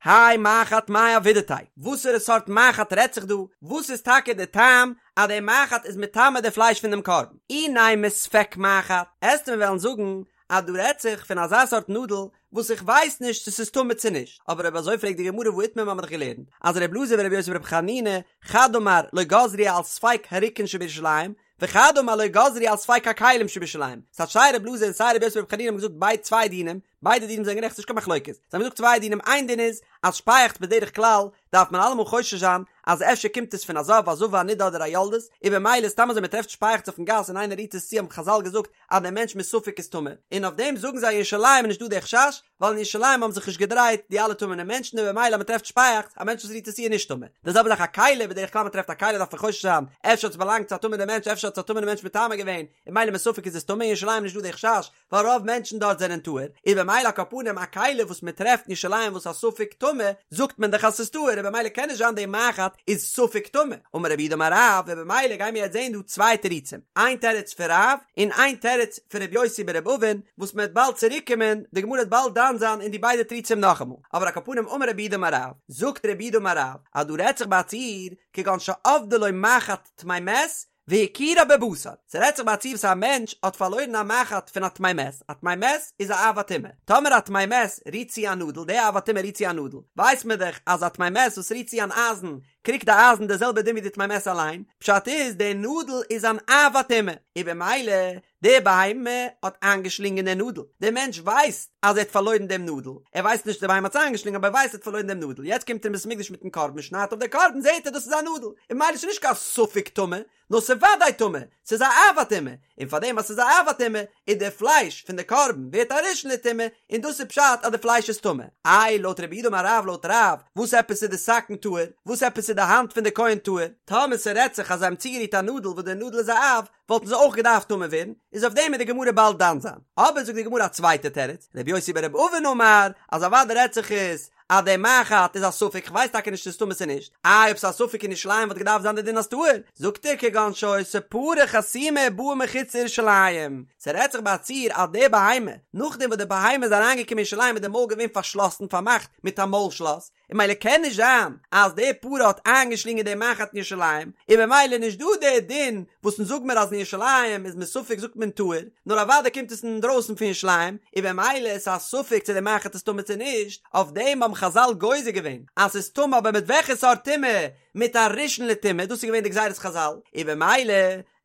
האי מחט מאי עבידתיה, וואסערע סארט מחט רעדט זיך דא, וואס איז טאקע די טעם אז די מחט איז מטמא די פלייש פון דעם קרבן? אי נימא ספק מחט, עסטו מיר וועלן זאגן אז דא רעדט זיך פון אזא סארט נאדל וואס איך ווייס נישט צו ס'איז טמא צו נישט, אבער אויב אזוי פרעגט די גמרא והא איתמר מ'האמיר דאך געלערנט אז ר' אלעזר ור' יוסי בר' חנינא חד אמר לא גזרו על ספק הרוקין שבירושלים וחד אמר לא גזרו על ספק הכלים שבירושלים, ס'טייטש סיי ר' אלעזר און סיי ר' יוסי בר' חנינא האבן געזאגט ביידע צוויי דינים, ביידע דינים זענען גערעכט ס'נישט קיין מחלוקת, זיי האבן געזאגט צוויי דינים איין דין איז אז שפייעכץ בדרך כלל. דארף מען אלעמאל חושש זיין אז אפשר קומט עס פון א זב, א זבה, א נידה אדער א יולדת, און במילא סתם אזוי מען טרעפט שפייעכץ אויפן גאס און איינער רירט עס צו האבן חזל געזאגט אז דער מענטש מספק איז טמא, און אויף דעם זאגן זיי אין ירושלים איז נישט דא דער חשש, ווייל אין ירושלים האבן זיך נישט געדרייט די אלע טמא'נע מענטשן און במילא אז מען טרעפט שפייעכץ, א מענטש וואס רירט עס צו איז נישט טמא. די זעלבע זאך א כלי, בדרך כלל מען טרעפט א כלי דארף מען חושש זיין, אפשר האט עס באלאנגט צו א טמא'נע מענטש, אפשר האט עס א טמא'נע מענטש מטמא געווען, און במילא מספק איז עס טמא, אין ירושלים איז נישט דא די חשש, ווייל רוב מענטשן דארט זענען טהור, איז במילא על כל פנים א כלי וואס מען טרעפט אין ירושלים וואס א ספק טמא, זאגט מען דאך אז ס'איז טהור, און במילא קען נישט זיין די מחט איז ספק טמא. אמר רב יהודה אמר רב, און במילא גיימיר יעצט זעהן דא צוויי תירוצים, איין תירוץ פון רב, און איין תירוץ פון רבי יוסי ברבי אבין, וואס מען וועט באלד צוריק קומען, די גמרא וועט באלד דן זיין אין די ביידע תירוצים נאכאמאל, אבער על כל פנים אמר רב יהודה אמר רב, זאגט רב יהודה אמר רב, אז דא רעדט זיך ביי א ציור, כגון שאבדה לו מחט טמא מת, והכירה בבשר, ס'רעדט זיך ביי א ציור וואס א מענטש האט פארלוירן א מחט פון א טמא מת, א טמא מת איז א אב הטומאה, טאמער א טמא מת רירט צו א נאדל, די אב הטומאה רירט צו א נאדל, ווייסט מען דאך אז א טמא מת וואס רירט צו אן אייזן, קריגט די אייזן די זעלבע דין ווי די טמא מת אליין, פשט איז די נאדל איז אן אב הטומאה, און במילא די בהמה האט איינגעשלינגען די נאדל, דער מענטש ווייסט אז ער האט פארלוירן דעם נאדל, ער ווייסט נישט די בהמה האט עס איינגעשלינגען אבער ער ווייסט ער האט פארלוירן דעם נאדל, יעצט קומט ער אין בית המקדש מיטן קרבן שניידט אויף די קרבן זעהט ער דאס איז א נאדל, און ממילא ס'איז נישט קיין ספק טמא, נאר ס'איז וודאי טמא, ס'איז א אב הטומאה, און פארדעם אז ס'איז א אב הטומאה, איז די פלייש פון די קרבן ווערט א ראשון לטומאה, און דאס איז פשט אז די פלייש איז טמא. איי לויט רב יהודה אמר רב לויט רב, וואס עפעס איז די סכין טהור? וואס עפעס איז די האנט פון די כהן טהור? טאמער ס'רעדט זיך אז זיי האבן צוגערירט א נאדל וואס די נאדל איז א אב, וואלטן זיי אויך געדארפט טמא ווערן, איז אויף דעם וועט די גמרא באלד דן זיין. אבער זאגט די גמרא א צווייטע תירוץ, רבי יוסי ברבי אבין אמר, אז אוודאי רעדט זיך עס אז די מחט איז א ספק, כ'ווייס טאקע נישט צו ס'איז טמא צו נישט, איי אויב ס'איז א ספק אין ירושלים וואלט געדארפט זיין די דין אז טהור, זאגט ער כגון שהיתה פרה חסומה ובאה מחוץ לירושלים, ס'רעדט זיך ביי א ציור אז די בהמה, נאכדעם וואס די בהמה איזאריינגעקומען אין ירושלים איז די מויל געווען פארשלאסן פארמאכט מיט א מויל שלאס, און ממילא קען נישט זיין אז די פרה האט איינגעשלינגען די מחט אין ירושלים, און ממילא נישט דא די דין וואס אונז זאג מיר אז אין ירושלים איז מספק זאגט מען טהור, נאר אוודאי קומט עס אינדרויסן פון ירושלים, און במילא איז א ספק צו די מחט איז טמא צו נישט, אויף דעם האבן חזל גוזר געווען אז ס'איז טמא אבער מיט וועלכע סארט טומאה? מיט א ראשון לטומאה, דאס איז געווען די גזירת חזל, און במילא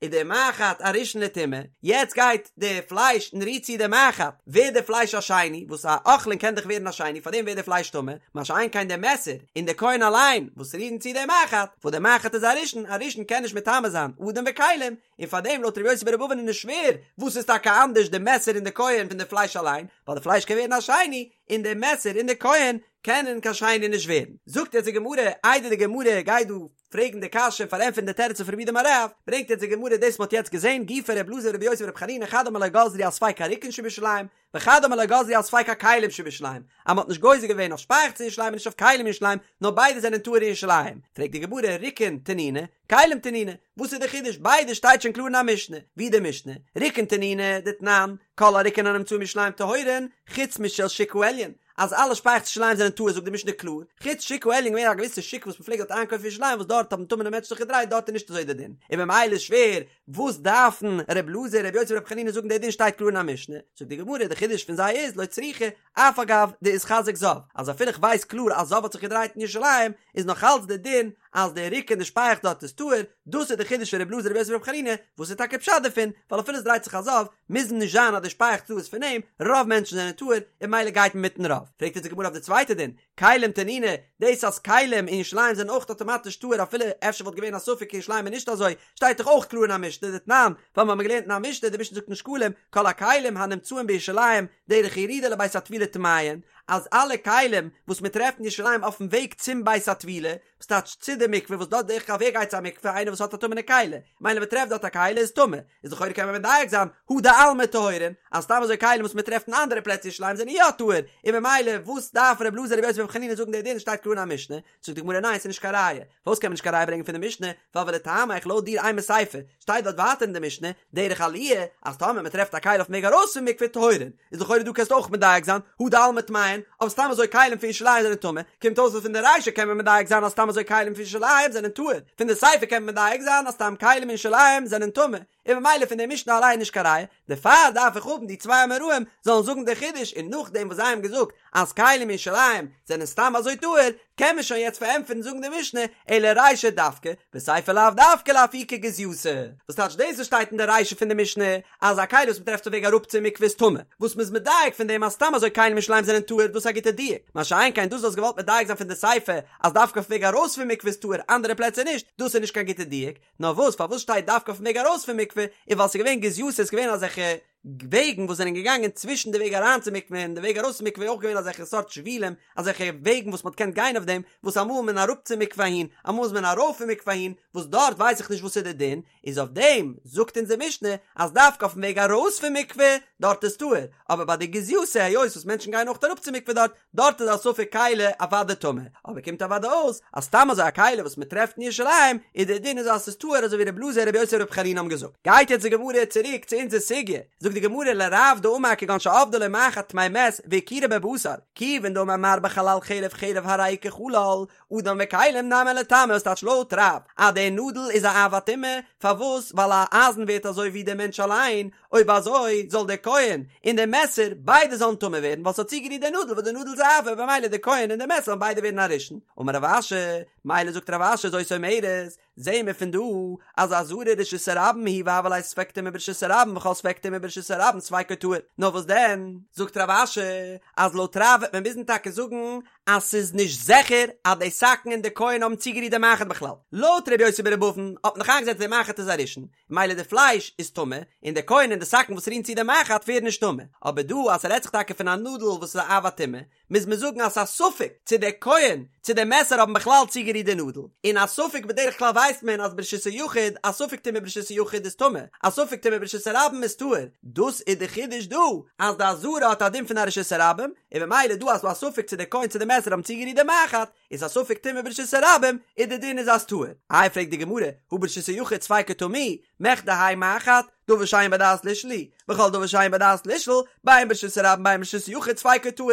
איז די מחט א ראשון לטומאה, יעצט גייט די פלייש און רירט צו די מחט, ווערט די פלייש א שני, וואס א אוכלין קען דאך ווערן א שני, פארדעם ווערט די פלייש טמא, מה שאין כן די מעסער און די כהן אליין וואס רירן צו די מחט, וואס די מחט איז א ראשון, א ראשון קען נישט מטמא זיין אדם וכלים, און פארדעם לויט ר' יוסי ברבי אבין איז נישט שווער, וואס איז טאקע אנדערש די מעסער און די כהן פון די פלייש אליין, ווייל די פלייש קען ווערן א שני, און די מעסער און די כהן קענען קיין שני נישט ווערן. זאגט יעצט די גמרא, איידער די גמרא גייט דא פרעגן די קשיא און פארענטפערן די תירוץ פון רב יהודה אמר רב, ברענגט יעצט די גמרא דאס מ'האט יעצט געזען, גופא ר' אלעזר ר' יוסי בר' חנינא חד אמר לא גזרו על ספק הרוקין שבירושלים, וחד אמר לא גזרו על ספק הכלים שבירושלים, אז מ'האט נישט גוזר געווען אויף שפייעכץ אין ירושלים און נישט אויף כלים אין ירושלים, נאר ביידע זענען טהור אין ירושלים. פרעגט די גמרא, רוקין תנינא, כלים תנינא, וואס איז די חידוש? ביידע שטייט שוין קלאר אין א משנה, ווי די משנה, רוקין תנינא, דתנן, כל הרוקין הנמצאין בירושלים טהורין, חוץ משל שוק העליון, אז אלע שפייעכץ אין ירושלים זענען טהור זאגט די משנה קלאר, חוץ שוק העליון געווען א געוויסע שוק וואס מ'פלעגט דארט איינקויפן אין ירושלים וואס דארט האבן טמא'נע מענטשן זיך געדרייט דארט איז נישט אזוי די דין, און ממילא איז שווער וואס דארפן ר' אלעזר ר' יוסי בר' חנינא זאגן די דין שטייט קלאר אין א משנה, זאגט די גמרא די חידוש פון זיי איז לא צריכא אף על גב דאיתחזק זב אז אפילו איך ווייס קלאר אז זב האט זיך געדרייט אין ירושלים איז נאך אלץ די דין אז די רוקין די שפייעכץ דארט איז טהור, דאס איז די חידוש פון ר' אלעזר ר' יוסי בר' חנינא, וואס איז טאקע פשט דערפון, ווייל אפילו עס דרייט זיך א זב, מוז נישט זיין אז די שפייעכץ דא איז פון אים, רוב מענטשן זענען טהור, און ממילא גייט מען מיטן רוב. פרעגט יעצט די גמרא אויף די צווייטע דין, כלים תנינא, דאס אז כלים אין ירושלים זענען אויך אטאמאטיש טהור אפילו אפשר וואלט געווען א ספק אין ירושלים איז נישט אזוי, שטייט דאך אויך קלאר אין א משנה דתנן, ווייל מיר האבן געלערנט אין א משנה, די משנה זאגט אין שקלים, כל הכלים הנמצאים בירושלים דרך ירידה לבית הטבילה טמאין, אז אלע כלים וואס מען טרעפט אין ירושלים אויפן וועג צום בית הטבילה, וואס טייטש צו די מקווה וואס דארט בדרך כלל ווער גייט צו א מקווה איינער וואס האט א טמא'נע כלי, מילא מען טרעפט דארט א כלי איז טמא, איז לכאורה קען מען מדייק זיין הא דעלמא טהורין, אז סתם אזוי כלים וואס מען טרעפט אין אנדערע פלעצער אין ירושלים זענען יא טהור, און ממילא וואס דארף ר' אלעזר ר' יוסי בר' חנינא זאגן די דין שטייט קלאר אין א משנה, זאגט די גמרא ניין ס'איז נישט קיין ראיה, פארוואס קען מען נישט קיין ראיה ברענגען פון די משנה, ווייל ולטעמיך לויט דיר אימא סיפא, שטייט דארט ווייטער אין די משנה, דרך עליה, אז טאמער מען טרעפט א כלי אויפן וועג ארויס פון מקווה טהורין, איז לכאורה דא קענסטו אויך מדייק זיין, הא דעלמא טמאין, אבער סתם אזוי כלים פון ירושלים זענען טמא, קומט אויס אז פון די רישא קען מען מדייק זיין אז סתם אזוי כלים פון ירושלים זענען טהור, פון די סיפא קען מען מדייק זיין אז סתם כלים אין ירושלים זענען טמא. און ממילא פון די משנה אליין נישט קיין ראיה, דערפאר דארף איך האבן די צוויי אמוראים זאלן זאגן די חידוש און נאכדעם וואס זיי האבן געזאגט אז כלים אין ירושלים זענען סתם אזוי טהור קען מען שוין יעצט פארענטפערן זאגן די משנה אלא רישא דווקא וסיפא לאו דווקא לאפוקי גזייתא וואס טייטש דאס וואס שטייט אין די רישא פון די משנה אז א כלי וואס מ'טרעפט אויף וועג אראפ צום מקווה איז טמא וואס מ'איז מדייק פון דעם אז סתם אזוי כלים אין ירושלים זענען טהור דאס איז א גוטע דיוק מה שאין כן דאס וואס האסט געוואלט מדייק זיין פון די סיפא אז דווקא אויף וועג ארויס פון מקווה איז טהור אנדערע פלעצער נישט דאס איז נישט קיין גוטע דיוק נאר וואס פארוואס שטייט דווקא אויפן וועג ארויס פון מקווה, איז ווייל ס'איז געווען גזייתא ס'איז געווען אזעלכע וועגן וואס זענען געגאנגען צווישן די וועג אריין צום מקווה און די וועג ארויס פון מקווה איז אויך געווען אזעלכע סארט שבילים אזעלכע וועגן וואס מ'האט געקענט גיין אויף דעם וואס אמאל איז מען אראפ צום מקווה אהין אמאל איז מען ארויף פון מקווה אהין וואס דארט ווייס איך נישט וואס איז די דין איז אויף דעם זאגט אונזער משנה אז דווקא אויפן וועג ארויס פון מקווה דארט איז טהור אבער ביי די גזייתא היות וואס מענטשן גייען אויך אראפ צום מקווה דארט דארט איז א ספק כלי אוודאי טמא, אבער קומט אוודאי אויס אז סתם אזוי א כלי וואס מען טרעפט אין ירושלים איז דער דין איז אז ס'איז טהור אזוי ווי רבי אלעזר רבי יוסי ברבי חנינא האבן געזאגט. גייט יעצט די גמרא צוריק צו אונזער סוגיא, זאגט די גמרא לרב דאמר כגון שאבדה לו מחט טמא מת והכירה בבשר, כיוון דאמר מר בחלל חרב חרב הרי היא כחלל, אדם וכלים נמי ליטמא וואס טייטש לויט רב אז דער נאדל איז א אב הטומאה, פארוואס ווייל א אייזן ווערט אזוי ווי דער מענטש אליין, אויב אזוי זאל דער כהן און דער מעסער ביידע זאלן טמא ווערן ווייל ס'האט צוגערירט דער נאדל וואס דער נאדל איז א אב במילא דער כהן און דער מעסער זאלן ביידע ווערן א ראשון. אמר רב אשי, מילא זאגט רב אשי זאת אומרת, זעהן מיר פון דא אז עזרה רשות הרבים היא והוה ליה ספק טומאה ברשות הרבים וכל ספק טומאה ברשות הרבים ספיקו טהור. נאר וואס דען? זאגט רב אשי אז לויט רב וועט מען מוזן טאקע זאגן אז ס'איז נישט זיכער אז די סכין און די כהן האבן צוגערירט די מחט בכלל. לויט ר' יוסי בר' אבין האט מען דאך איינגעזעצט די מחט איז א ראשון, מילא די פלייש איז טמא, און די כהן און די סכין וואס רירן צו די מחט ווערן נישט טמא. אבער דא אז ס'רעדט זיך טאקע פון א נאדל וואס איז א אב הטומאה, מוז מען זאגן אז ס'איז א ספק צו דער כהן צו דער מעסער האבן בכלל צוגערירט די נאדל. און א ספק בדרך כלל ווייסט מען אז ברשות היחיד, א ספק טומאה ברשות היחיד איז טמא, א ספק טומאה ברשות הרבים איז טהור. דאס איז די חידוש דא, אז די עזרה האט א דין פון א רשות הרבים, און במילא דא אז ס'דא א ספק צו דער כהן צו די מעסער האבן צוגערירט די מחט, איז א ספק טומאה ברשות הרבים, און די דין איז אז טהור. איי פרעגט די גמרא, הא ברשות היחיד ספיקו טמא, מכדי האי מחט, דבר שאין בו דעת לישאל הוא, וכל דבר שאין בו דעת לישאל, בין ברשות הרבים בין ברשות היחיד ספיקו טהור.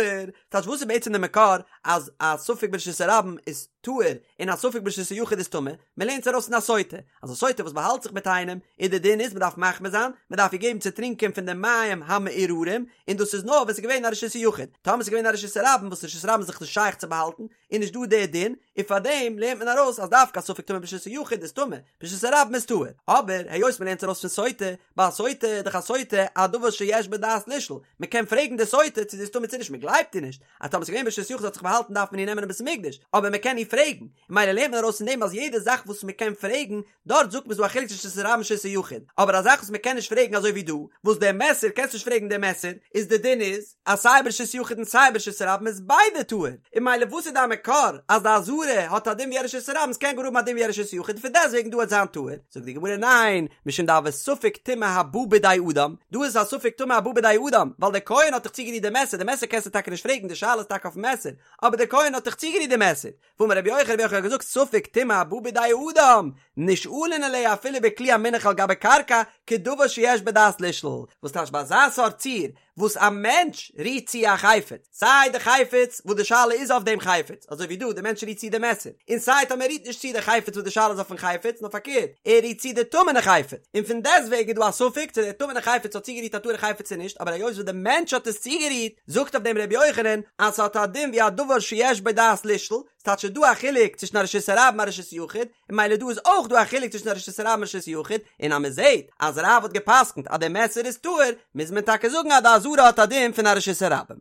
טייטש וואס איז בעצם די מקור אז א ספק ברשות הרבים איז טהור און א ספק ברשות היחיד איז טמא? מען לערנט עס ארויס פון א סוטה, אז א סוטה וואס באהאלט זיך מיט איינעם, און די דין איז מען דארף מחמיר זיין, מען דארף איר געבן צו טרינקען פון די מים המאררים, און דאס איז נאר ווען ס'איז געווען א רשות היחיד, טאמער ס'איז געווען א רשות הרבים וואס רשות הרבים איז זיך נישט שייך צו באהאלטן, איז נישט דא די דין, און פארדעם לערנט מען ארויס אז דווקא א ספק טומאה ברשות היחיד איז טמא, ברשות הרבים איז טהור. אבער היות מען לערנט עס ארויס פון סוטה, ביי א סוטה איז דאך א סוטה א דבר שיש בו דעת לישאל, מען קען פרעגן די סוטה צו זי איז טמא צו נישט, מען גלייבט איר נישט, אז טאמער ס'איז געווען ברשות יחיד זי האט זיך באהאלטן דארף מען איר נעמען אין בית המקדש, אבער מען קען איר פרעגן, און מילא לערנט מען ארויס פון דעם אז יעדע זאך וואס מען קען פרעגן, דארט זאגט מען ס'דא א חילוק צווישן רשות הרבים און רשות היחיד, אבער א זאך וואס מען קען נישט פרעגן אזוי ווי דא, וואס דער מעסער קענסט נישט פרעגן דער מעסער, איז די דין איז אז סיי ברשות יחיד און סיי ברשות הרבים איז ביידע טהור, און מילא וואס איז דיין מקור אז די עזרה האט א דין ווי א רשות הרבים ס'קען גאר האבן א דין ווי א רשות יחיד און פון דעסטוועגן דא וועט זיין טהור, זאגט די גמרא ניין, משום דהוי ספק טומאה הבא בידי אדם, דא איז א ספק טומאה הבא בידי אדם, ווייל דער כהן האט דאך צוגערירט די מעסער, די מעסער קענסטו טאקע נישט פרעגן, די שאלה איז טאקע אויפן מעסער, אבער דער כהן האט דאך צוגערירט די מעסער, ואמר רבי יוחנן, רבי יוחנן האט געזאגט ספק טומאה הבא בידי אדם, נשאלין עליה אפילו בכלי המונח על גבי קרקע, כדבר שיש בו דעת לישאל, וואס טייטש ביי אזא סארט ציור, וואס א מענטש רירט צו א חפץ, סיי די חפץ וואס די שאלה איז אויף דעם חפץ, אזוי ווי דא די מענטש רירט צו די מעסער, און סיי טאמער ער רירט נישט צו די חפץ וואס די שאלה איז אויפן חפץ, נאר פארקערט, ער רירט צו די טמא'נע חפץ, און פון דעסטוועגן איז דא א ספק צו דער טמא'נע חפץ האט צוגערירט א טהור'ע חפץ צו נישט, אבער היות וואס די מענטש האט עס צוגערירט, זאגט אויף דעם רבי יוחנן אז ס'האט א דין ווי א דבר שיש בו דעת לישאל, ס'טייטש ס'איז דא א חילוק צווישן א רשות הרבים און א רשות יחיד, און מילא דא איז אויך דא א חילוק צווישן א רשות הרבים און רשות יחיד, און אז מ'זעט אז רב האט גע'פסק'נט אז דער מעסער איז טהור, מוז מען טאקע זאגן אז די עזרה האט א דין פון א רשות הרבים.